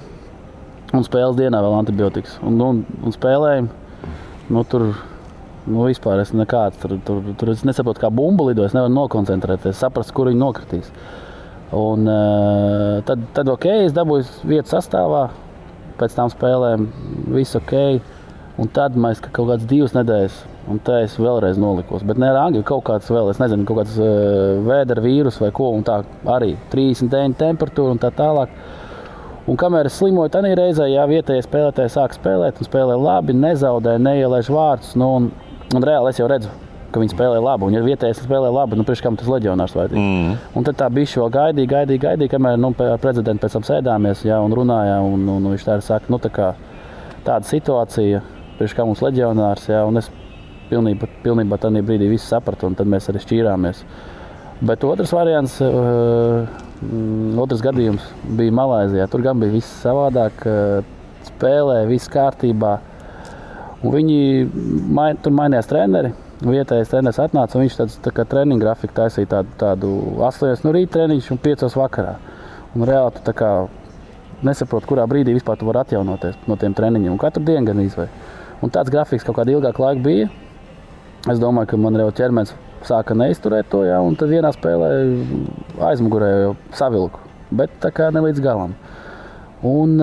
un spēles dienā vēl antibiotikas. Un spēlēju, tur vispār es nekāds. Tur es nesaprotu, kā bumba lido, es nevaru nokoncentrēties, saprast, kur viņi nokritīs. Un tad ok, es dabūju vietu sastāvā, pēc tām spēlēm viss ok. Un tad mēs kaut kādas 2 nedēļas, un tā es vēlreiz nolikos. Bet ne ar angļu, kaut kāds vēl, es nezinu, kaut kāds vēdera vīrus vai ko, un tā arī 39 temperatūra un tā tālāk. Un kamēr es slimoju, tad reizē vietējie spēlētāji sāk spēlēt un spēlē labi, nezaudē, neielaiž vārdus. Un reāli es jau redzu, ka viņi spēlē labi. Un ja vietējais spēlē labi, priekš kam tas leģionārs vajadzīgi. Un tad tā bišķi vēl gaidīja, kamēr ar prezidentu pēc tam sēdāmies un runājām. Un viņš tā saka, tā kā tāda situācija, priekš kā mums leģionārs. Un es pilnībā tādā brīdī visu sapratu, un tad mēs arī šķīrāmies. Bet otrs variants, otrs gadījums bija Malaizijā. Tur gan bija viss savādāk, spēlē, viss kārtībā. Un tur mainījās treneri. Vietējais treneris atnāca, un viņš tā kā treniņu grafiku taisīja tādu 8 no rīta treniņš un 5 vakarā. Un reāli tu tā kā nesaproti, kurā brīdī vispār tu vari atjaunoties no tiem treniņiem. Un katru dienu gan izvai. Un tāds grafiks kaut kādu ilgāku laiku bija. Es domāju, ka man jau ķermenis sāka neizturēt to, un tad vienā spēlē aizmugurē jau savilku. Bet tā kā ne līdz galam. Un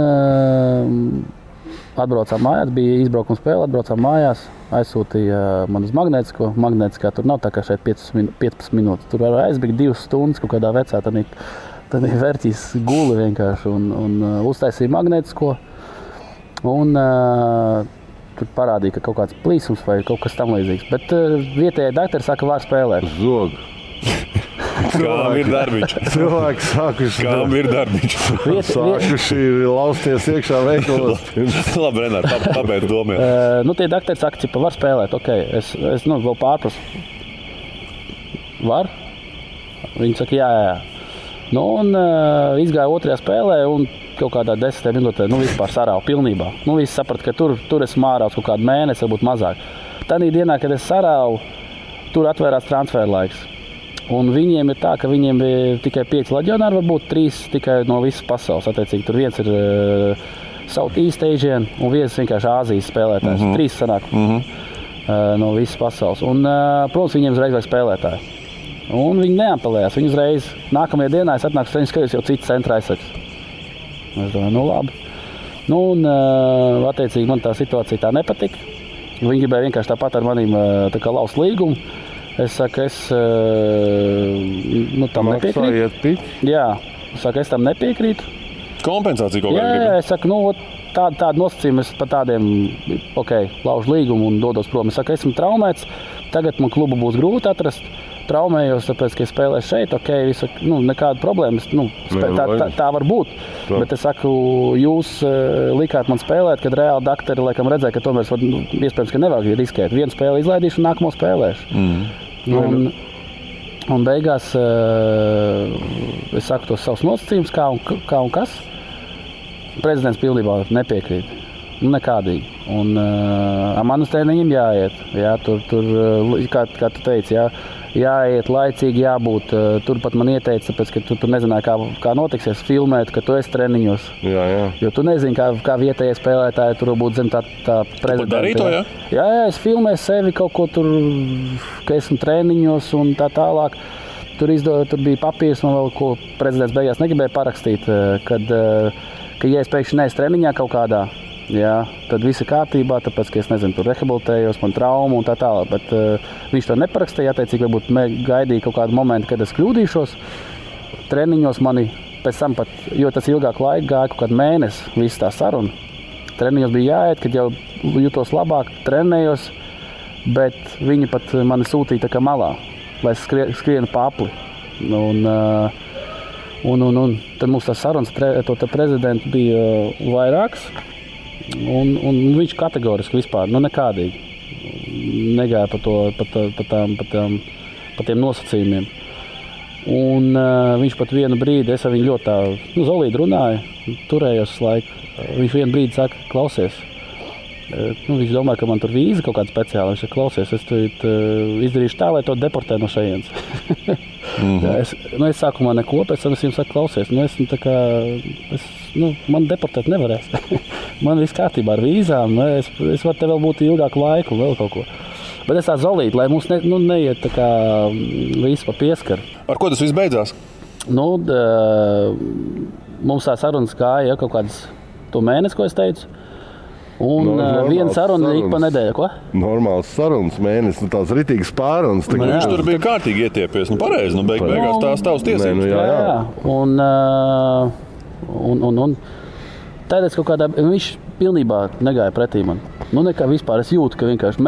atbraucām mājās, bija izbraukuma spēle, atbraucām mājās, aizsūtīja man uz magnētisko. Magnētiskā tur nav tā kā šeit 15 minūtes. Tur var aizbēgt 2 stundas kaut kādā vecā, tad vērtīs guli vienkārši un uztaisīja magnētisko. Un tur parādīja, ka kaut kāds plīsums vai kaut kas tam līdzīgs. Bet vietējie doktori saka, var spēlēt. Zog. Kām ir darbiņš? Cilvēki sākuši lausties iekšā veikalos. Labi, Renār, pabeidz domāt. Tie doktori saka, ka var spēlēt. Okay. Es vēl pārprasu. Var? Viņi saka, jā. Izgāja otrajā spēlē un kaut kādā 10 minūtē vispār sarāva pilnībā. Visi saprata, ka tur es mārāts kaut kādu mēnesi, varbūt mazāk. Tanī dienā, kad es sarāvu, tur atvērās transfer laiks. Un viņiem ir tā, ka viņiem ir tikai 5 leģionāri, varbūt 3 tikai no visas pasaules. Attiecīgi, tur viens ir Southeast Asian un viens vienkārši Āzijas spēlētājs. 3 sanāk no visas pasaules. Un, protams, viņiem uzreiz vajag spēlētāji. Un viņi neapelējās. Viņi uzreiz nākamajā dienā es atnāku uz skaļus jau citu centra aizsargs. Es domāju, labi. Attiecīgi, man tā situācija tā nepatika. Viņi gribēja vienkārši tāpat ar manīm laust līgumu. Es saku, tam nepiekrītu. Jā, es tam nepiekrītu. Kompensācija kaut kādā gribēja? Jā, es saku, tādu nosacījumu es pa tādiem, laužu līgumu un dodos prom. Es saku, esmu traumēts, tagad man klubu būs grūti atrast. Traumējos, tāpēc, ka es spēlēju šeit, visu, nekāda problēma. Tā var būt. Bet es saku, jūs likāt man spēlēt, kad reāli doktori laikam redzēja, ka tomēr iespējams, ka nevajag riskēt. Vienu spēli izlaidīšu un nākamo spēlēšu. Un beigās es saku tos savus nosacījumus, kā un kas. Prezidents pilnībā nepiekrīt. Nekādīgi. Un manas treniņiem jāiet. Jā, tur kā tu teici, jāiet laicīgi, jābūt. Tur pat man ieteica, tāpēc, ka tu nezināji, kā notiksies filmēt, ka tu esi treniņos. Jā. Jo tu nezini, kā vietējie spēlētāji tur būtu zem tā prezidenta. Tu darīji to, jā? Jā, es filmēju sevi kaut ko tur, ka esmu treniņos un tā tālāk. Tur bija papīrs, man vēl ko prezidents beigās negribēja parakstīt, kad ja es pēkšņi neesmu treniņā kaut kādā, jā, tad viss ir kārtībā, tāpēc, ka es nezinu, tur rehabilitējos, man traumu un tā tālāk. Bet viņš to neparakstīja, attiecīgi, varbūt gaidīja kaut kādu momentu, kad es kļūdīšos. Treniņos mani pēc tam pat, jo tas ilgāk laika gāja, kaut kādu mēnesi, viss tā saruna. Treniņos bija jāiet, kad jau jutos labāk, trenējos, bet viņi pat mani sūtīja tā kā malā, lai es skrienu pa apli. Un tad mums tas sarunas to prezidentu bija vairāks. Un viņš kategoriski vispār, nekādīgi negāja pa tiem nosacījumiem. Un viņš pat vienu brīdi, es ar viņu ļoti tā, zolīdi runāju, turējos laiku. Viņš vienu brīdi saka, klausies, viņš domāja, ka man tur vīza kaut kāda speciāla. Viņš saka, klausies, es izdarīšu tā, lai to deportē no šejienes. Es sākumā neko, pēc tam es viņam saku, klausies, man deportēt nevarēs. Man viss kārtībā ar vīzām, es varu te vēl būt ilgāku laiku, vēl kaut ko. Bet es tā zolīti, lai mums neiet tā kā visu pa pieskaru. Ar ko tas viss beidzās? Mums tā sarunas gāja kaut kādas to mēnesi, ko es teicu. Un viena saruna ik pa nedēļu, ko? Normāls sarunas mēnesis, tās ritīgas pārunas. Viņš tur bija kārtīgi ietiepies, beigās tās tavas tiesības. Jā. Un tādēļ kaut kādā, viņš pilnībā negāja pretī man. Nu, nekā vispār. Es jūtu, ka vienkārši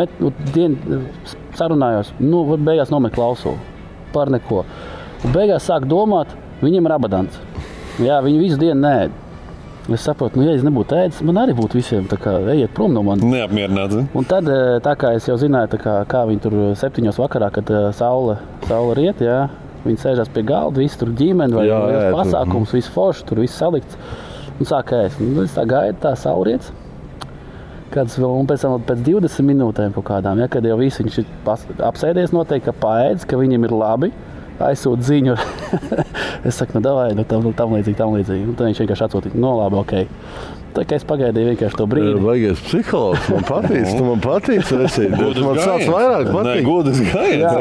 sarunājos, beigās nomet klausulu par neko. Un beigās sāk domāt, viņiem ir abadants. Jā, viņi visu dienu neēd. Es saprotu, ja es nebūtu ēdis, man arī būtu visiem tā kā ejiet prom no manis. Neapmierināts. Un tad, tā kā es jau zināju, kā viņi tur 7 vakarā, kad saule riet, jā, viņi sēžās pie galda, visi tur ģimeni vai pasākums, viss forši, tur viss salikts. Un sāk ēst. Es tā gaidu, tā saule riets. Un pēc tam pēc 20 minūtēm kaut kādām, ja, kad jau visi viņš ir apsēdies noteikti, ka paēdis, ka viņiem ir labi. Aizsūt ziņu. Es saku, davai, tam līdzīgi. Un tad viņš vienkārši atsūtīja, labi, okei. Tā kā es pagaidīju vienkārši to brīdi. Baigais psihologs, man patīc, resīt. Man sāc vairāk patīt. Nē, godas gājiens.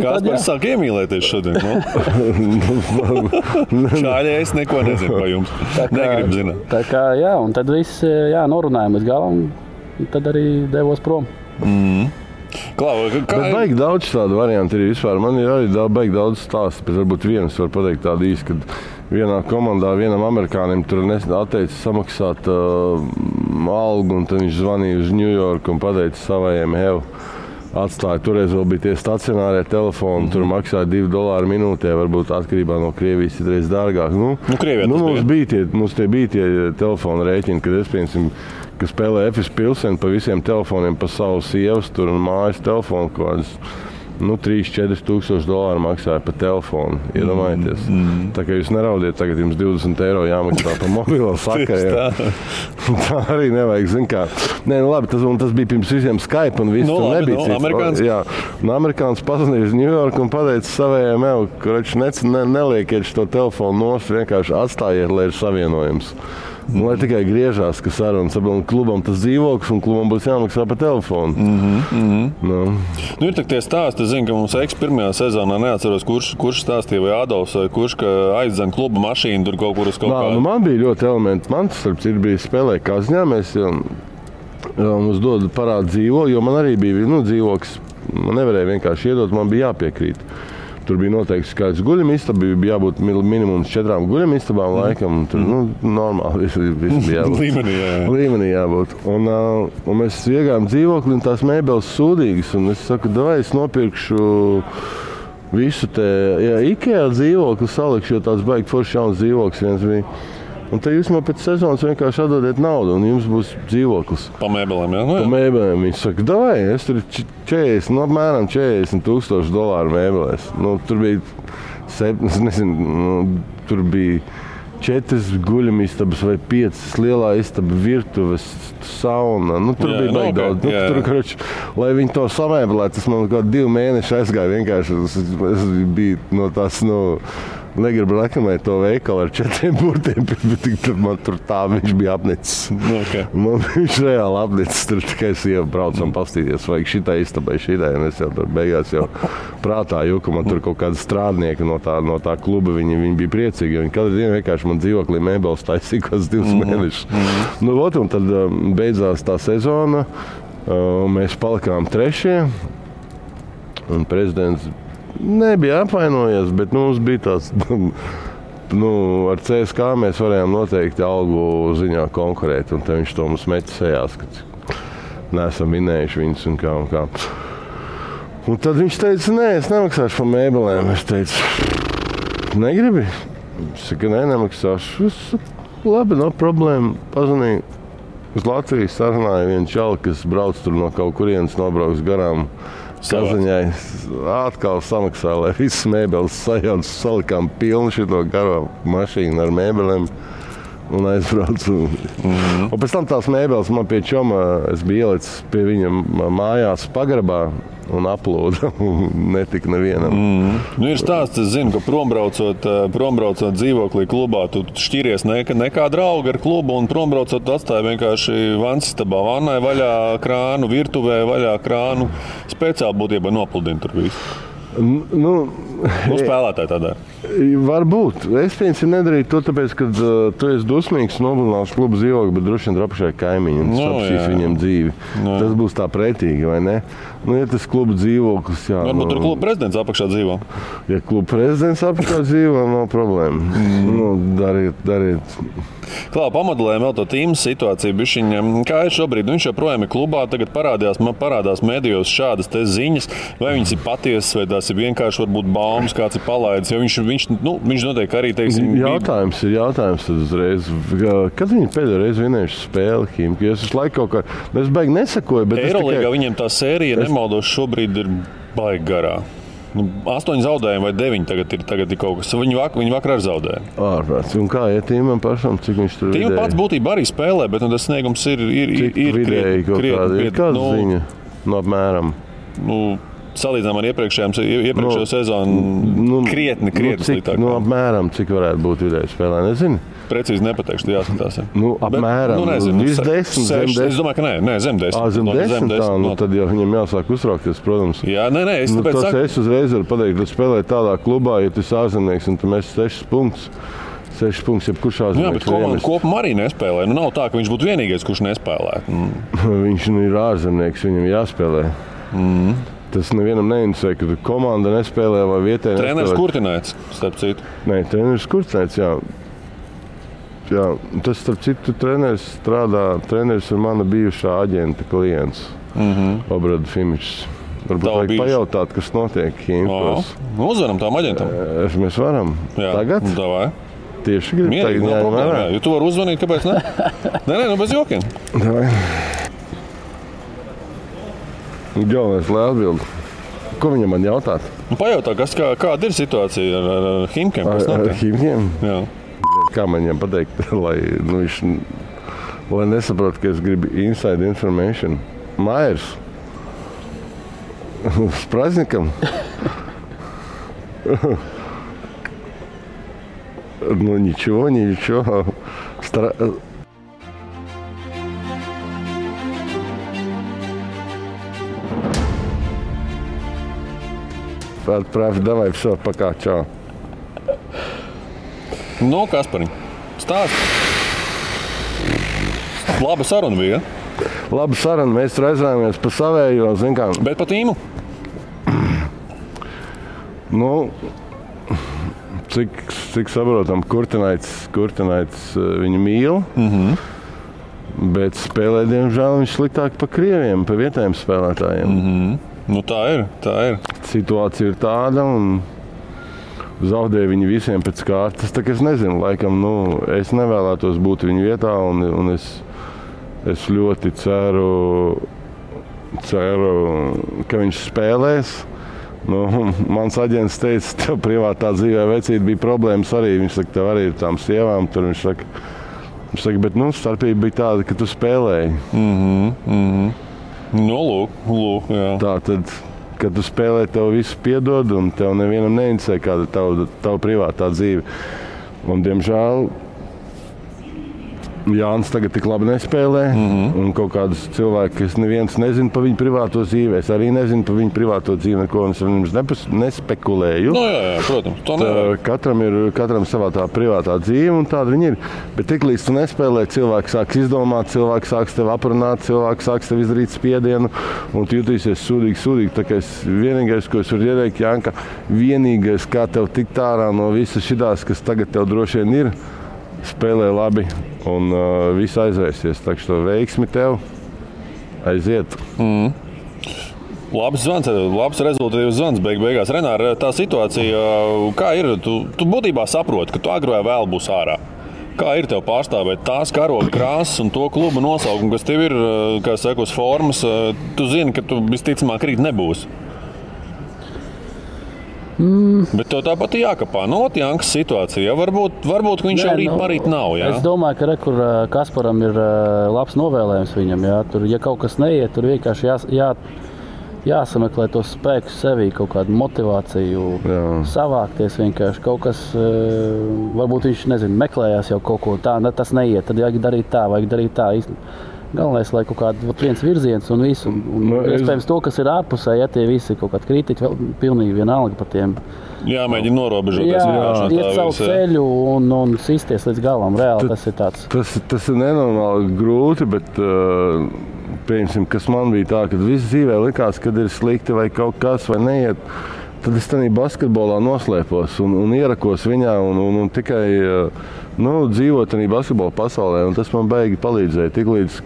Kaspars sāk iemīlēties šodien. Šāļi es neko nezinu par jums. Negribu zināt. Tā kā, jā, un tad viss, norunājām līdz galam, un tad arī devos prom. Bet baigi daudz tādu variantu ir vispār. Man ir arī baigi daudz stāstu, bet varbūt vienas var pateikt tādu īsti, kad vienā komandā vienam amerikānim tur atteica samaksāt algu, un tad viņš zvanīja uz New York un pateica savajiem atstāja. Toreiz vēl bija tie stacionārie telefoni, tur maksāja $2 minūtē, varbūt atkarībā no Krievijas citreiz dārgāk. Mums tie bija tie telefona rēķini, kad es piemēram, ka spēlē Efes Pilseni pa visiem telefoniem, pa savu sievas tur un mājas telefonu, kaut kādas 3-4 tūkstoši dolāru maksāja pa telefonu. Iedomājieties. Tā kā jūs neraudiet, tagad jums €20 jāmaksā pa mobilo sakaru. Tā arī nevajag, zin kā. Nē, labi, tas bija pirms visiem Skype un viss tur nebija cits. Jā, un amerikāns pazvanīja uz New York un pateica savējiem, neliekiet šo telefonu nost, vienkārši atstājiet, lai ir savienojums. Lai tikai griežās, ka sarunas klubam tas dzīvoklis un klubam būs jāmaksā pa telefonu. Ir tak tie stāsti, es zinu, ka mums pirmajā sezonā neatceros, kurš stāstīja vai Adolfs vai kurš, ka aizdzen kluba mašīnu tur kaut kur uz kaut kādu. Man bija ļoti elementi. Man starp citu bija spēlē Kazņā, mēs mums dod parādu dzīvokli, jo man arī bija dzīvoklis. Man nevarēja vienkārši iedot, man bija jāpiekrīt. Tur bija noteikti skaits guļamistaba, bija jābūt minimums 4 guļamistabām laikam. Tur normāli viss bija jābūt. Līmenī jābūt. Un mēs iegājām dzīvokli un tās mēbeles sūdīgas. Un es saku, davai es nopirkšu visu te IKEA dzīvokli salikšu, jo tāds baigi forši jauns dzīvoklis viens bija. Un tad jūs man pēc sezonas vienkārši atdodiet naudu, un jums būs dzīvoklis. Pa mēbelēm, jā? Pa mēbelēm. Viņš saka, davai, es tur apmēram $40,000 mēbelēs. Tur bija, tur bija 4 guļamistabas vai 5 lielā istaba, virtuves, sauna. Tur bija baigi daudz. Tur, lai viņi to samēbelē, tas man kaut 2 mēneši aizgāja vienkārši. Es biju no tās, negribu reklamēt to veikalu ar 4 burtiem, bet man tur tā viņš bija apnicis. Man viņš reāli apnicis, tur tikai sieva braucam pastīties, vajag šitai istabai, šitai, un es jau tur beigās jau prātā jūku, man tur kaut kāda strādnieka no tā kluba, viņi bija priecīgi, jo viņi katru dienu vienkārši man dzīvoklī mēbeles taisīja kāds 2 mēnešus. Un tad beidzās tā sezona, mēs palikām 3. un prezidents nebija apvainojies, bet mums bija tāds, ar CSK mēs varējām noteikti algu ziņā konkurēt, un tad viņš to mums meķa sejās, ka neesam vinējuši viņus un kā. Un tad viņš teica, nē, es nemaksāšu par mēbelēm. Es teicu, negribi? Es saku, nemaksāšu. Labi, nav problēma. Pazvanīju uz Latviju, sarunāju vienu čali, kas brauc tur no kaut kurienes, nobrauks garām. Kazaņai atkal samaksāja, lai visas mēbeles sajauc, salikām pilnu šito garo mašīnu ar mēbelēm un aizbraucu. Un pēc tam tās mēbeles man pie čoma, es biju ielicis pie viņa mājās pagrabā un aplūda, netika nevienam. Ir stāsts, es zinu, ka prombraucot dzīvoklī klubā, tu šķiries nekā drauga ar klubu un prombraucot tu atstāji vienkārši vansistabā, vannai vaļā krānu, virtuvē vaļā krānu, speciāli būtībā nopludini tur visu. Spēlētāji tādā. Varbūt. Es piemēram nedarīju to, tāpēc, ka tu esi dusmīgs, noblināšu klubu dzīvokli, bet droši vien apašai kaimiņi un sapšīs viņiem dzīvi. Tas būs tā pretīgi, vai ne? Ja tas klubu dzīvoklis, jā. Varbūt tur klubu prezidents apakšā dzīvo. Ja klubu prezidents apakšā dzīvo, nav problēma. Dariet. Klā, pamodelējam vēl to tīmas situāciju. Bišķiņa, kā ir šobrīd? Viņš joprojām ir klubā, tagad parādās medijos šādas te ziņas, vai viņas ir patiesas, vai tās ir vienkārši varbūt baumas, kāds ir palaidis. Jo viņš noteikti arī, teiksim... Jautājums tad uzreiz. Kad viņi pēdējo reizi vinējuši spēli Himki? Es visu laiku kaut kā... Es baigi nesakoju, bet Eirolīgā viņiem tā sērija, nemaldos, šobrīd ir baigi garā. 8 zaudējumi vai 9 tagad ir kaut kas. Viņi vakar arī zaudēja. Ārprāts. Un kā iet Tīmam pašam, cik viņš tur vidēji? Tīma pats būtībā arī spēlē, bet tas sniegums ir vidēji kaut kāda. Ir kāda ziņa? No apmēram. Salīdzinām ar iepriekšējo sezonu krietni sliktāk. Apmēram, cik varētu būt vidēji spēlē, nezinu. Precīzi nepateikšu, jāskatās. Apmēram. Nezinu. Viss 10, zem 10. Es domāju, ka nē, zem 10. Zem 10 tā, tad jau viņam jāsāk uztraukties, protams. Jā, nē, es tāpēc saku. Es uzreiz varu pateikt, ka spēlē tādā klubā, ja tu esi ārzemnieks un tu mēs 6 punktus. 6 punktus, jebkurš ārzemnieks. Jā, bet komanda kopumā arī nespēlē. Nav tā, ka viņš būtu vienīgais, kurš nespēlē. Viņš ir ārzemnieks, viņam jāspēlē. Tas nevienam neinteresē, ka komanda nespēlē vai vietēji nespēlē. Treneris Kurtināts, starp citu. Nē, treneris Kurtināts, jā. Jā, tas, starp citu, treneris ir mana bijušā aģenta klients, Obrada Fimičs. Varbūt vajag pajautāt, kas notiek Himkos. Uzvaram tām aģentam. Mēs varam. Jā, tagad? Davai. Tieši gribu tagad jāņem vērā. Jo tu vari uzvanīt, kāpēc ne? Nē, bez jokiem. Davai. Galvenais, lai atbild. Ko viņam man jautāt? Pajautā, kāda ir situācija ar Himkiem? Ar Himkiem? Jā. Kā man viņam pateikt, lai nesaprot, ka es gribu inside information. Mairs. С праздником. Ничего. Отправь, давай, все, пока, čau. Kaspariņ, stāsti. Laba saruna bija. Laba saruna, mēs aizrājāmies pa savējo, zin kā. Bet pa tīmu? Cik saprotam, Kurtināts viņu mīl, bet spēlē, diemžēl, viņš sliktāk pa krieviem, pa vietējiem spēlētājiem. Tā ir. Situācija ir tāda, un zaudēja viņi visiem pēc kārtas. Tā kā es nezinu, laikam, es nevēlētos būt viņu vietā, un es ļoti ceru, ka viņš spēlēs. Mans aģents teica, tev privātā dzīvē vecīt bija problēmas arī. Viņš saka, tev arī ir tām sievām. Tur viņš saka, bet starpība bija tāda, ka tu spēlēji. Lūk, jā. Tā tad, kad tu spēlē, tev visu piedod, un tev nevienam neinteresē, kāda ir tava privātā dzīve. Un, diemžēl, Jānis tagad tik labi nespēlē, un kaut kādus cilvēkus, kas neviens nezina par viņu privāto dzīvi. Es arī nezinu par viņu privāto dzīvi, neko es ar jums nespekulēju. Jā, protams. Katram savā tā privātā dzīve, un tāda viņi ir. Bet tiklīdz tu nespēlē, cilvēks sāks izdomāt, cilvēks sāks tev aprunāt, cilvēks sāks tev izdarīt spiedienu, un tu jutīsies sūdīgi. Tā kā vienīgais, ko es varu ieteikt, Janka, vienīgais, kā tev tikt ārā no visas šitās, kas tagad tev droši vien ir, spēlē labi un viss aizvērsies. Tā kā veiksmi tev aiziet. Labs zvans, labs rezultātīvs zvans beigās. Renār, tā situācija, kā ir? Tu būtībā saproti, ka tu agri vai vēl būs ārā. Kā ir tev pārstāvēt tās karoga krāsas un to kluba nosaukumu, kas tev ir, kā saka, uz formas? Tu zini, ka tu visticamāk rīt nebūsi. Bet tev tāpat jākapā Jankas situācija. Varbūt viņš jau rīt nav. Jā? Es domāju, ka kur Kasparam ir labs novēlējums viņam. Jā. Tur, ja kaut kas neiet, tur vienkārši jāsameklē tos spēkus sevī, kaut kādu motivāciju, savākties vienkārši. Kaut kas, varbūt viņš meklējās jau kaut ko tā, tas neiet, tad vajag darīt tā. Galvenais, lai kaut kāds viens virziens un visu. Iespējams, to, kas ir ārpusē, ja tie visi kaut kādi kritiķi, vēl pilnīgi vienalga par tiem. Mēģina norobežoties. Iet savu ceļu un sisties līdz galam. Reāli tas ir tāds. Tas ir nenormāli grūti, bet pieņemsim, kas man bija tā, kad viss dzīvē likās, kad ir slikti vai kaut kas vai neiet. Tad es tādā basketbolā noslēpos un ierakos viņā un tikai dzīvot arī basketbola pasaulē, un tas man beigi palīdzēja. Tiklīdz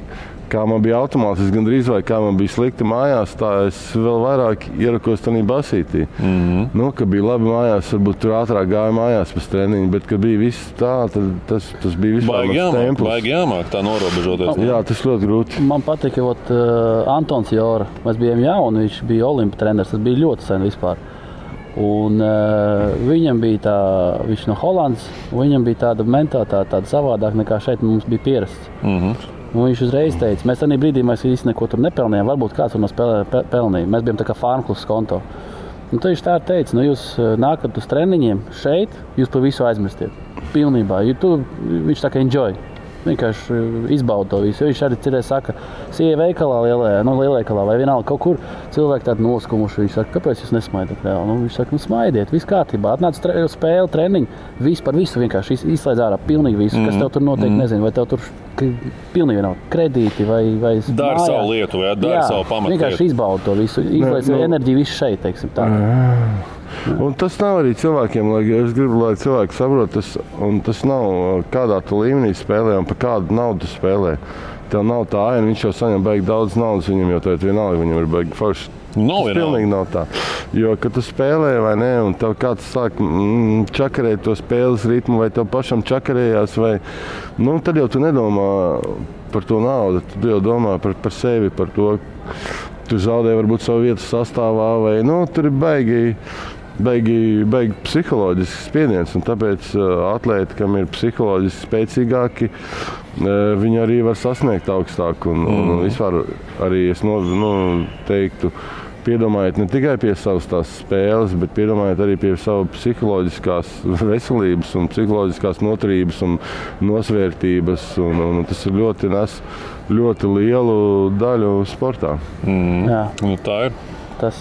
kā man bija automātiski gandrīz vai kā man bija slikti mājās, tā es vēl vairāk ierakos tādā basītī. Kad bija labi mājās, varbūt tur ātrāk gāja mājās pēc treniņa, bet kad bija viss tā, tad tas bija vispār templis. Baigi jāmāk tā norobežoties. Jā, tas ļoti grūti. Man patika, Antons Jora. Mēs bijām jauni, viņš bija Olimpa treneris, tas bija ļoti sen vispār. Un viņam bija viņš no Holandas, viņam bija tāda mentalitāte, tāda savādāk nekā šeit mums bija pierasts. Un viņš uzreiz teica, mēs arī brīdī mēs īsti neko tur nepelnījām, varbūt kāds tur no pelnīja. Mēs bijām tā kā farmklubs konto. Un tad viņš tā teica, jūs nākat uz treniņiem šeit, jūs par visu aizmirstiet. Pilnībā. Viņš tā kā enjoy. Vienkārši izbauda to visu. Viņš arī cerēja, saka, sieja veikalā, lielveikalā vai vienalga kaut kur cilvēki tādi noskumuši. Viņš saka, kāpēc jūs nesmaidat? Viņš saka, smaidiet, viss kārtībā. Atnāc spēle, treniņu, viss par visu vienkārši izslēdz ārā pilnīgi visu, kas tev tur noteikti nezinu, vai tev tur pilnīgi vienalga kredīti vai Dari savu lietu, vai dari savu pamatu. Vienkārši izbauda to visu, izslēdz enerģiju visu šeit, teiksim tā. Un tas nav arī cilvēkiem, es gribu, lai cilvēki saprot, tas nav kādā tu līmenī spēlē un par kādu naudu spēlē. Tev nav tā aina, viņš jau saņem baigi daudz naudas, viņam jau tagad vienalga, viņam ir baigi forši. Tas pilnīgi nav tā. Jo, kad tu spēlē vai ne, un tev kāds sāk čakarēt to spēles ritmu, vai tev pašam čakarējās, vai, tad jau tu nedomā par to naudu, tu jau domā par sevi, par to, tu zaudē varbūt savu vietu sastāvā, vai, tur ir baigi psiholoģisks spiediens, un tāpēc atlēti, kam ir psiholoģiski spēcīgāki, viņi arī var sasniegt augstāk. Un vispār arī es teiktu, piedomājiet ne tikai pie savas tās spēles, bet piedomājiet arī pie savu psiholoģiskās veselības un psiholoģiskās noturības un nosvērtības. Un tas ir ļoti lielu daļu sportā. Jā. Tā ir. Tas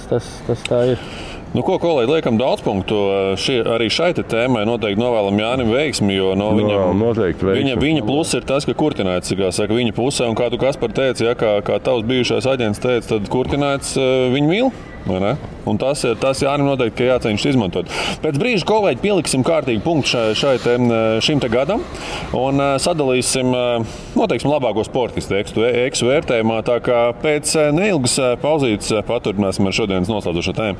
tā ir. Ko, kolēģi, liekam daudz punktu. Arī šai tēmai noteikti novēlam Jānim veiksmi, jo viņa pluss ir tas, ka Kurtināts, kā saka, viņa pusē, un kā tu Kaspar teici, kā tavs bijušais aģents teica, tad Kurtināts viņu mīl. Un tas Jānim noteikti, ka jāceņš izmantot. Pēc brīža, kolēģi, pieliksim kārtīgi punktu šim te gadam un sadalīsim, noteiksim, labāko sportistu eksu vērtējumā. Tā kā pēc neilgas pauzītes paturpināsim ar šodienas noslēdzošo tēmu.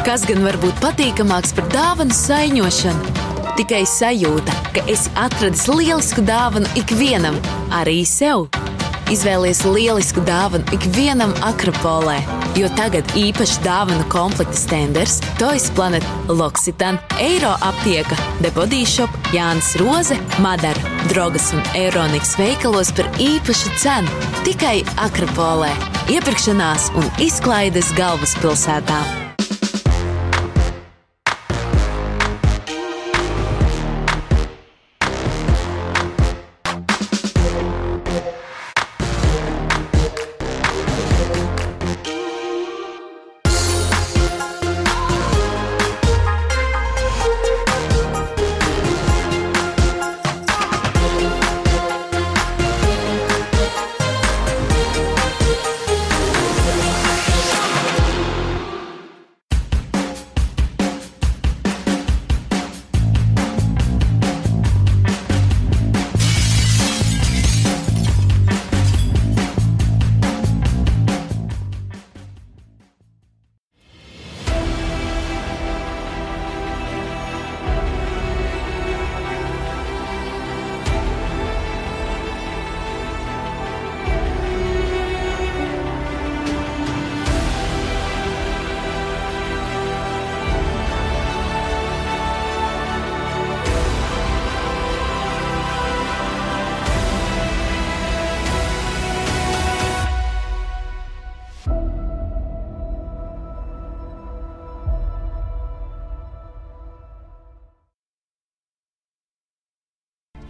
Kas gan var būt patīkamāks par dāvanu saiņošanu? Tikai sajūta, ka esi atradis lielisku dāvanu ikvienam, arī sev. Izvēlies lielisku dāvanu ikvienam Akropolē, jo tagad īpaši dāvanu komplekta Stenders, Toys Planet, L'Occitane, Eiro aptieka, The Body Shop, Jānis Roze, Madara, Drogas un Euroniks veikalos par īpašu cenu. Tikai Akropolē. Iepirkšanās un izklaides galvaspilsētā.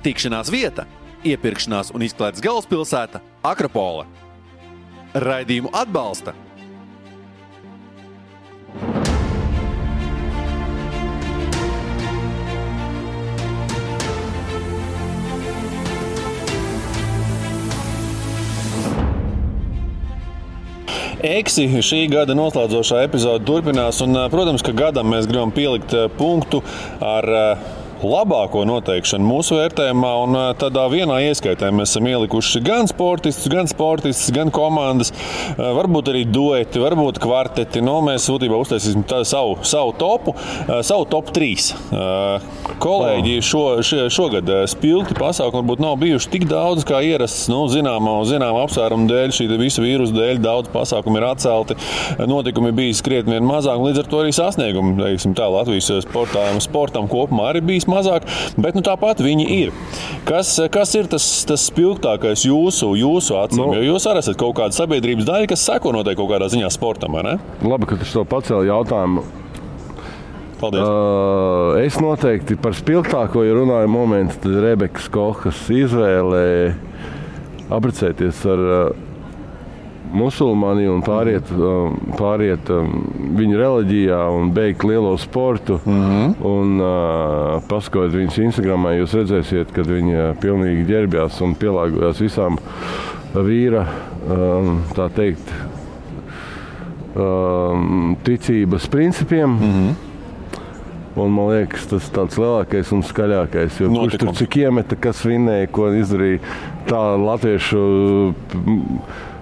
Tikšanās vieta, iepirkšanās un izklaides galvaspilsēta Akropole. Raidījumu atbalsta Eksi šī gada noslēdzošā epizode turpinās, un, protams, ka gadam mēs gribam pielikt punktu ar labāko noteikšanu mūsu vērtējumā, un tādā vienā ieskaitē mēs esam ielikuši gan sportistus, gan komandas, varbūt arī dueti, varbūt kvarteti. Mēs būtībā uztaisīsim savu topu, savu top 3. Kolēģi šogad spilgti pasākumi varbūt nav bijuši tik daudz kā ierasts, zinām apsvērumu dēļ, šī visu vīrusu dēļ daudz pasākumi ir atcelti, notikumi bijis krietni vien mazāk, līdz ar to arī sasniegumi, teiksim tā, Latvijas sportam kopumā arī bijis mazāk, bet tāpat viņi ir. Kas ir tas spilgtākais jūsu acīm? Jo jūs arī esat kaut kāda sabiedrības daļa, kas seko noteikti kaut kādā ziņā sportam, vai ne? Labi, ka tu to pacēli jautājumu. Paldies. Es noteikti par spilgtāko, ja runāju momentu, tad Rebekas Kohas izvēlē apprecēties ar musulmani un pāriet viņu reliģijā un beigt lielo sportu. Un paskatot viņas Instagramā, jūs redzēsiet, kad viņa pilnīgi ģērbjās un pielāgojās visām vīra, tā teikt, ticības principiem. Un man liekas, tas tāds lielākais un skaļākais. Jo kurš tur cik iemeta, kas vinēja, ko izdarīja tā latviešu.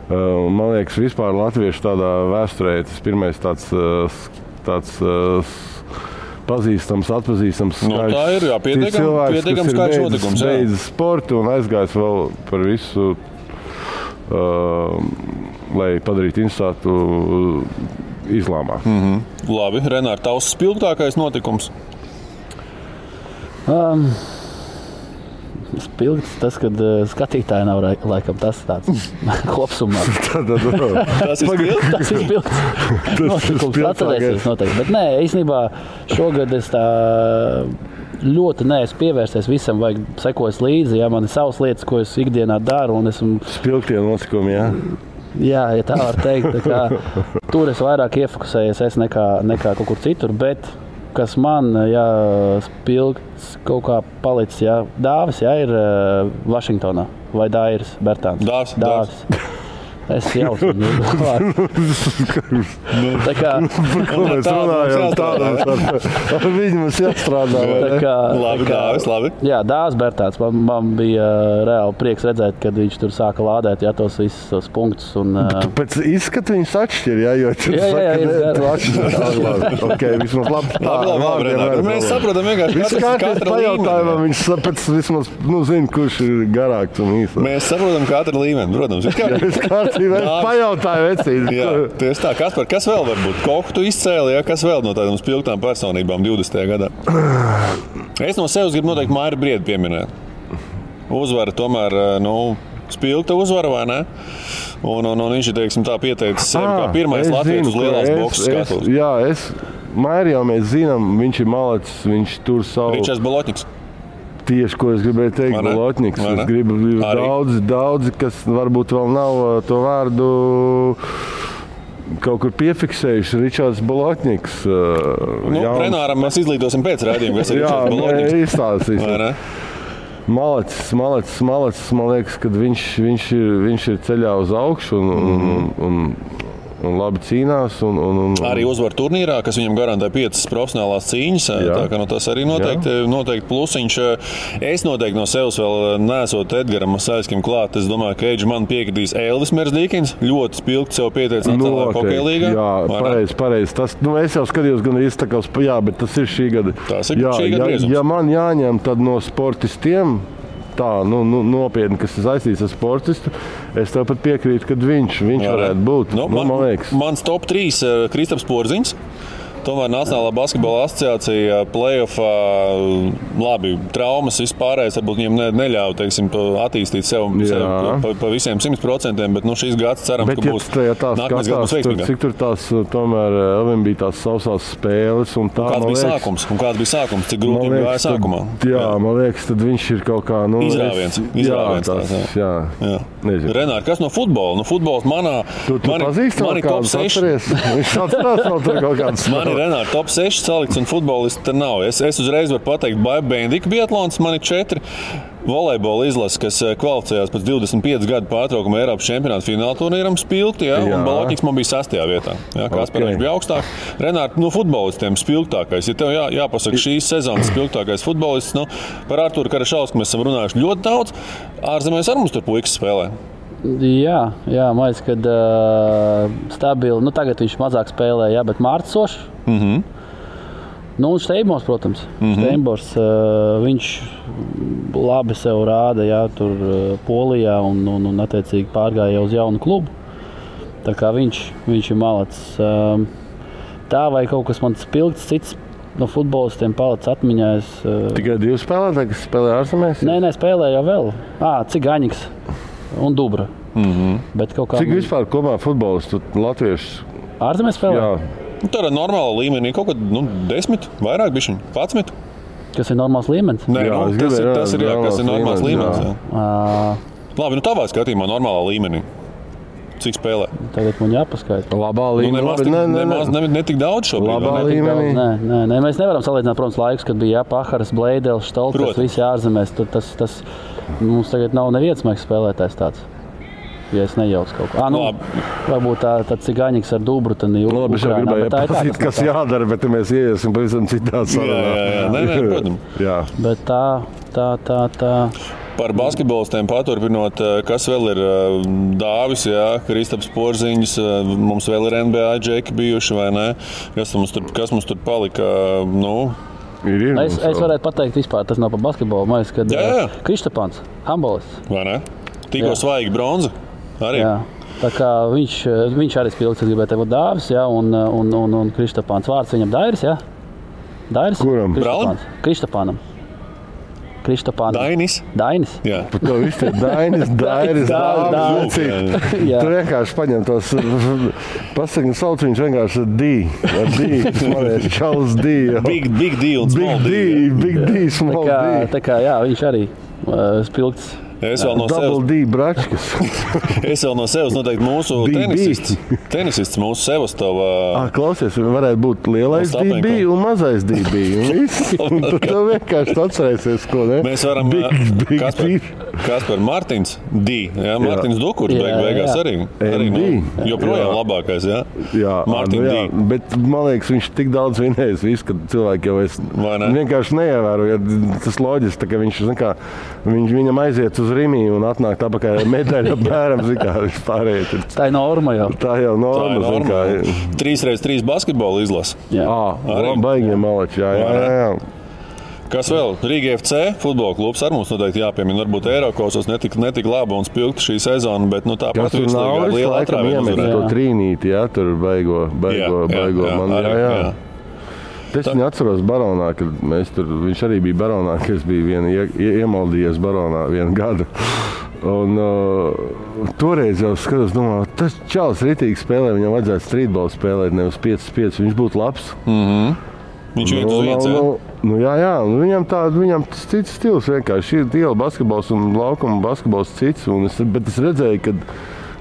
Man liekas, vispār latviešu tādā vēsturē tas pirmais tāds pazīstams, atpazīstams skaļš. Tā ir, jā, pietiekams skaļš notikums. Beidz sportu un aizgājis vēl par visu, lai padarītu interesētu islāmā. Labi, Renār, tavs spilgtākais notikums? Spilgts tas, kad skatītāji nav laikam tas tāds kopsumā. Tas ir spilgts? Tas ir spilgts. Notikums atcerēsies noteikti. Bet nē, īstenībā šogad es tā ļoti neesmu pievērsies visam, vajag sekos līdzi. Jā, man ir savas lietas, ko es ikdienā daru. Un esmu spilgtie notikumi, jā? Jā, ja tā var teikt. Tur es vairāk iefokusējies nekā kaut kur citur, bet kas man spilgts kaut kā palicis, Dāvis, ir Vašingtonā vai Dairis Bertāns? Dāvis. Es jau esmu tā kā mēs runājam tādā ar viņu mums jāstrādā. Labi. Jā, Dāvis Bertāns. Man bija reāli prieks redzēt, kad viņš tur sāka lādēt tos visus punktus. Pēc izskata viņus atšķir, jo okay, vismaz labi. Mēs saprotam vienkārši katra līmeni. Viņš pēc vismaz zina, kurš ir garāks un īsāks. Mēs saprotam katra līmeni, protams. Pajautāju vecību. Jā, tieši tā. Kaspar, kas vēl var būt? Koku tu izcēli, kas vēl no tādām spilgtām personībām 20. gadā? Es no sevis gribu noteikti Mairi Briedi pieminēt. Uzvara tomēr, spilgta uzvara, vai ne? Un viņš ir, teiksim, tā pieteicis sevi kā pirmais latvietis uz lielās boksas skatuves. Jā, Mairi jau mēs zinām, viņš ir malacis, viņš tur savu... Ričards Bolotņiks. Tieši, ko es gribēju teikt, Bolotņiks. Es gribu daudzi, kas varbūt vēl nav to vārdu kaut kur piefiksējuši. Ričards Bolotņiks. Renāram mēs izlīdosim pēc raidījuma, kas ir Ričards Bolotņiks. Jā, izstāstīsim. Malacis, man liekas, kad viņš ir ceļā uz augšu un labi cīnās. Arī uzvar turnīrā, kas viņam garantē 5 profesionālās cīņas. Tā kā tas arī noteikti plusiņš. Es noteikti no sevis vēl neesot Edgaram Masaļskim klāt. Es domāju, ka Eidži man piekritīs Elvis Mersdīkins. Ļoti spilgti sev pieteicis nacionālajā hokeja līgā. Jā, pareizi. Es jau skatījos gan arī iztakās, bet tas ir šī gada. Tas ir šī gada griezums. Ja man jāņem, tad no sportistiem tā, nopietni, kas ir saistīts ar sportistu, es tev pat piekrītu, ka viņš varētu būt. Man liekas. Mans top 3 Kristaps Porziņš. Tomēr Nacionālā basketbola asociācija play-offā, labi, traumas vispārējais, varbūt viņiem neļauj, teiksim, attīstīt sev pa visiem 100%, bet šīs gads ceram, ka būs nākamais gads veiksmīgāk. Cik tur tās, tomēr, Elvim bija tās sausās spēles un tā, un kāds bija sākums, cik grūti bija gāja sākumā? Jā, man liekas, tad viņš ir kaut kā, Izrāviens. Jā. Renār, kas no futbola? Futbols mani top 6. Viņš atcerās vēl tur kaut kāds. Renāri, top 6 salikts un futbolisti te nav. Es uzreiz varu pateikt, Bendika biatlons, man ir 4. Volejbola izlase, kas kvalificējās pēc 25 gadu pārtraukuma Eiropas čempionāta fināla turnīram spilgti, un Balotņiks man bija 6. vietā. Kaspars bija augstāk. Renāri, futbolistiem spilgtākais. Ja tev jāpasaka šīs sezonas spilgtākais futbolists, par Arturu Karašausku mēs esam runājuši ļoti daudz. Ārzemēs ar mums tur puikas spēlē. Jā, man liekas, kad stabili, tagad viņš mazāk spēlē, bet Mārtisošs. Un Steinbors, protams. Steinbors, viņš labi sev rāda, tur Polijā un attiecīgi pārgāja uz jaunu klubu. Tā kā viņš ir malacis. Tā vai kaut kas man spilgts cits no futbolistiem palicis atmiņā. Tikai 2 spēlētāji, kas spēlē ārzemēs? Nē, spēlē jau vēl. Cigaņiks un Dubra. Bet kaut kā... Cik vispār kopā futbolistu latviešu? Ārzemēs spēlē? Jā. Tā ir normāla līmenī, kaut kad 10, vairāk bišķiņ, 11. Kas ir normāls līmenis? Nē, tas ir normāls līmenis. Labi, tavā skatījumā normālā līmenī. Cik spēlē? Tagad man jāpaskaita. Labā līmenī. Ne tik daudz šobrīd. Labā līmenī. Nē, mēs nevaram salīdzināt, protams, laikus, kad bija Paharas, Bleidels, Štolkas, visi ārzemēs. Tas mums tagad nav neviens maigs spēlētājs tāds. Ja es nejaucu kaut ko. Varbūt tāds Cigaņiks ar Dubru, tad ir Ukrainā. Labi, šeit gribēju pasīt, kas jādara, bet mēs ieiesim pavisam citā sarunā. Jā, protams. Jā. Bet tā. Par basketbolistiem paturpinot, kas vēl ir Dāvis, Kristaps Porziņš, mums vēl ir NBA džeki bijuši, vai ne? Kas mums tur palika, Es varētu pateikt vispār, tas nav par basketbolu, man liekas, kad Kristapāns, handbolists. Vai ne? Tikko svaigi bronza. Arī. Jā. Tā kā viņš arī spilgts, es gribēju teikt, Dāvis, un Kristapāns. Vārds viņam Dairis, jā? Dairis? Kuram? Kristapānam. Dainis? Jā. Par to viss ir Dairis, Dāvis. Tu vienkārši paņem tos, pasaki, sauc viņš vienkārši ar D. Smalēs, Čals D. Big deal, small deal. Big D, small D. Tā kā, viņš arī spilgts. Es vēl no Double D bračkas. Es vēl no sevis noteikti mūsu tenisists, mūsu Sevastova. Klausies, varētu būt lielais DB un mazais DB. Un tad tev vienkārši atcerēsies, ko ne? Mēs varam Kaspar Martins D. Martins Dukurs beigās arī joprojām labākais, Jā, Martin D. Bet man liekas, viņš tik daudz vinējis visu, ka cilvēki jau vienkārši neievēro. Tas loģiski, ka viņam aiziet uz Rimī un atnāk tāpakaļ medaļa bērams, viņš pārējais. Tā ir norma jau. Tā jau norma. 3x3 basketbola izlase. Baigie malači, jā. Kas vēl? Rīga FC futbola klubs ar mums noteikti jāpiemina. Varbūt Eirokosos netik laba un spilgta šī sezona, bet tāpat ir liela atrāviena. To trīnīti, tur baigo man, jā. Es viņu atceros Baronā, kad viņš arī bija Baronā, ka es biju iemaldījies Baronā vienu gadu. Un toreiz jau skatos, domāju, tas čalis ritīgi spēlē, viņam vajadzētu streetbolu spēlēt, nevis 5-5, viņš būtu labs. Viņš iet uz vietas, jā, viņam tas cits stils vienkārši. Ir iela basketbols un laukuma basketbols cits, bet es redzēju, ka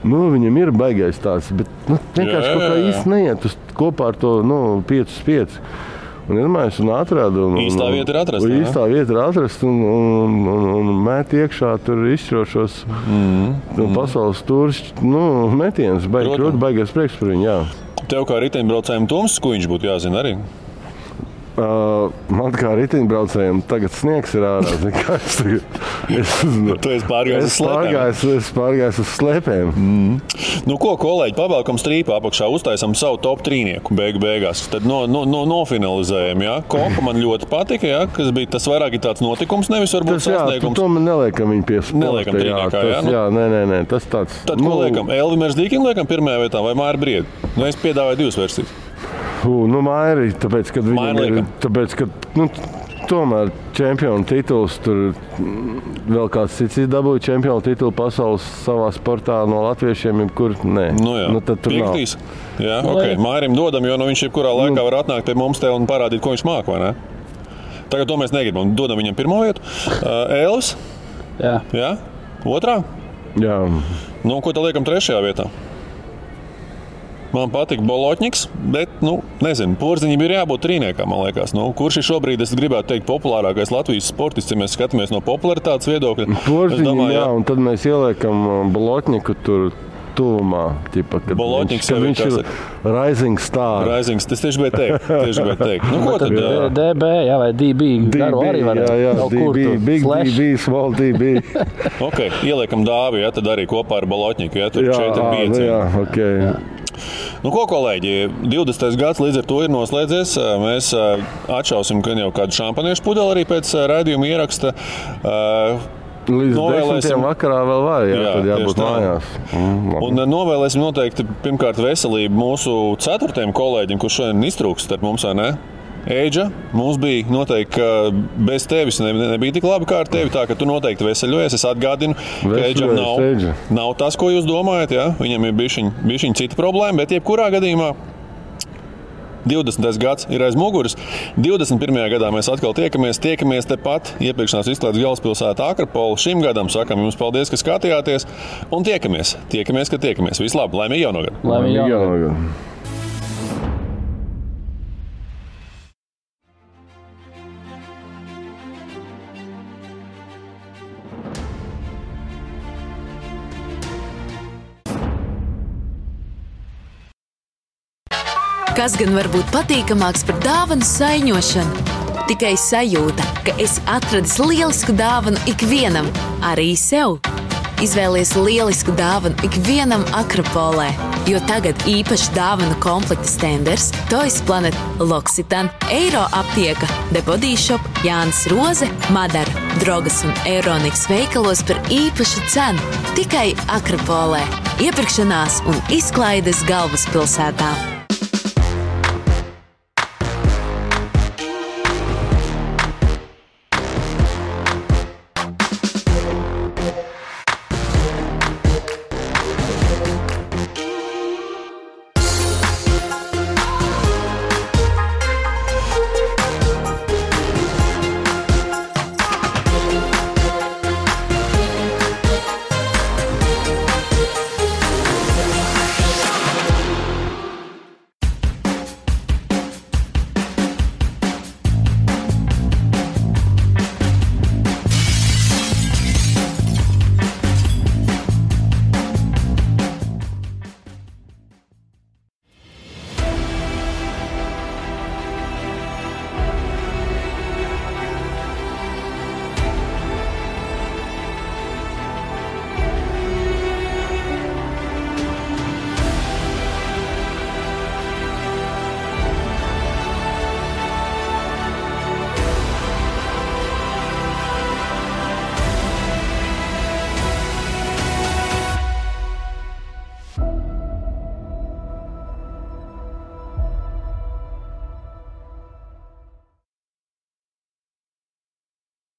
viņam ir baigais tāds, bet vienkārši kaut kā īsti neiet kopā ar to 5-5. Un iedomājies un atrada. Īstā vieta ir atrasta. Īstā vieta ir atrasta un mēt iekšā tur izšķirošos pasaules tūris metienus. Baigais prieks par viņu, jā. Tev kā riteņbraucējiem Toms Skuiņš būtu jāzina arī? Man kā riteņbraucējiem tagad sniegs ir ārā. Tu esi pārgājis uz slēpēm? Es pārgājis uz slēpēm. Ko, kolēģi, pavēlkam strīpā apakšā, uztaisam savu top trīnieku beigās. Tad nofinalizējam, Kopa man ļoti patika, kas bija tas vairāk ir tāds notikums, nevis varbūt sasniegums. To man neliekam viņu pie sporta. Neliekam trīniekā, Nē, tas tāds. Tad ko liekam? Elvimers Dīkim liekam pirmajā vietā vai Māri Briedi? Es piedāvāju 2 versijas. Mairi, tāpēc, ka viņam ir, tomēr čempionu tituls, tur vēl kāds cits dabūja čempionu titulu pasaules savā sportā no latviešiem, kur nē. Tad tur Piektīs. Jā, Mairim dodam, jo viņš jebkurā laikā var atnākt pie mums te un parādīt, ko viņš māk, vai ne? Tagad to mēs negribam. Dodam viņam pirmo vietu. Elvis? Jā? Otrā? Jā. Ko tad liekam 3. vietā? Man patīk Bolotņiks, bet, nezinu, Porziņam ir jābūt trīniekam, man liekas. Kurš ir šobrīd, es gribētu teikt, populārākais Latvijas sportists, ja mēs skatāmies no popularitātes viedokļa? Porziņam, jā, un tad mēs ieliekam Bolotņiku tur tuvumā. Bolotņiks jau viņš ir rising star. Rising, tas tieši bija teikt. Ko tad? DB, jā, vai DB. Garu arī var. Jā, DB, big DB, small DB. Ok, ieliekam Dāvi, ja, tad arī kopā ar Bolotņiku, ja, tur 4-5. Jā, ok. Jā. Ko, kolēģi, 20. gads līdz ar to ir noslēdzies. Mēs atšausim, ka jau kādu šampaniešu pudeli arī pēc raidījuma ieraksta. Līdz 10. vakarā vēl var, tad jābūt mājās. Un novēlēsim noteikti pirmkārt veselību mūsu 4. kolēģim, kurš šodien iztrūks starp mums, vai ne? Eidža, mums bija noteikti, ka bez tevis nebija tik labi kā ar tevi, tā ka tu noteikti veseļojies. Es atgādinu, ka Eidžam nav tas, ko jūs domājat, ja? Viņam ir bišķiņ cita problēma, bet jebkurā gadījumā 20. gads ir aiz muguras. 21. gadā mēs atkal tiekamies tepat iepirkšanās izklaides galvaspilsētā Akropola. Šim gadam sakam jums paldies, ka skatījāties, un tiekamies, ka tiekamies. Vislabāk, laimīgi jauno gadu! Laimīgi jauno gadu! Kas gan var būt patīkamāks par dāvanu saiņošanu? Tikai sajūta, ka esi atradis lielisku dāvanu ikvienam, arī sev. Izvēlies lielisku dāvanu ikvienam Akropolē, jo tagad īpaši dāvanu komplekta Stenders, Toys Planet, L'Occitane, Eiro aptieka, The Body Shop, Jānis Roze, Madara, Drogas un Euroniks veikalos par īpašu cenu. Tikai Akropolē. Iepirkšanās un izklaides galvaspilsētā.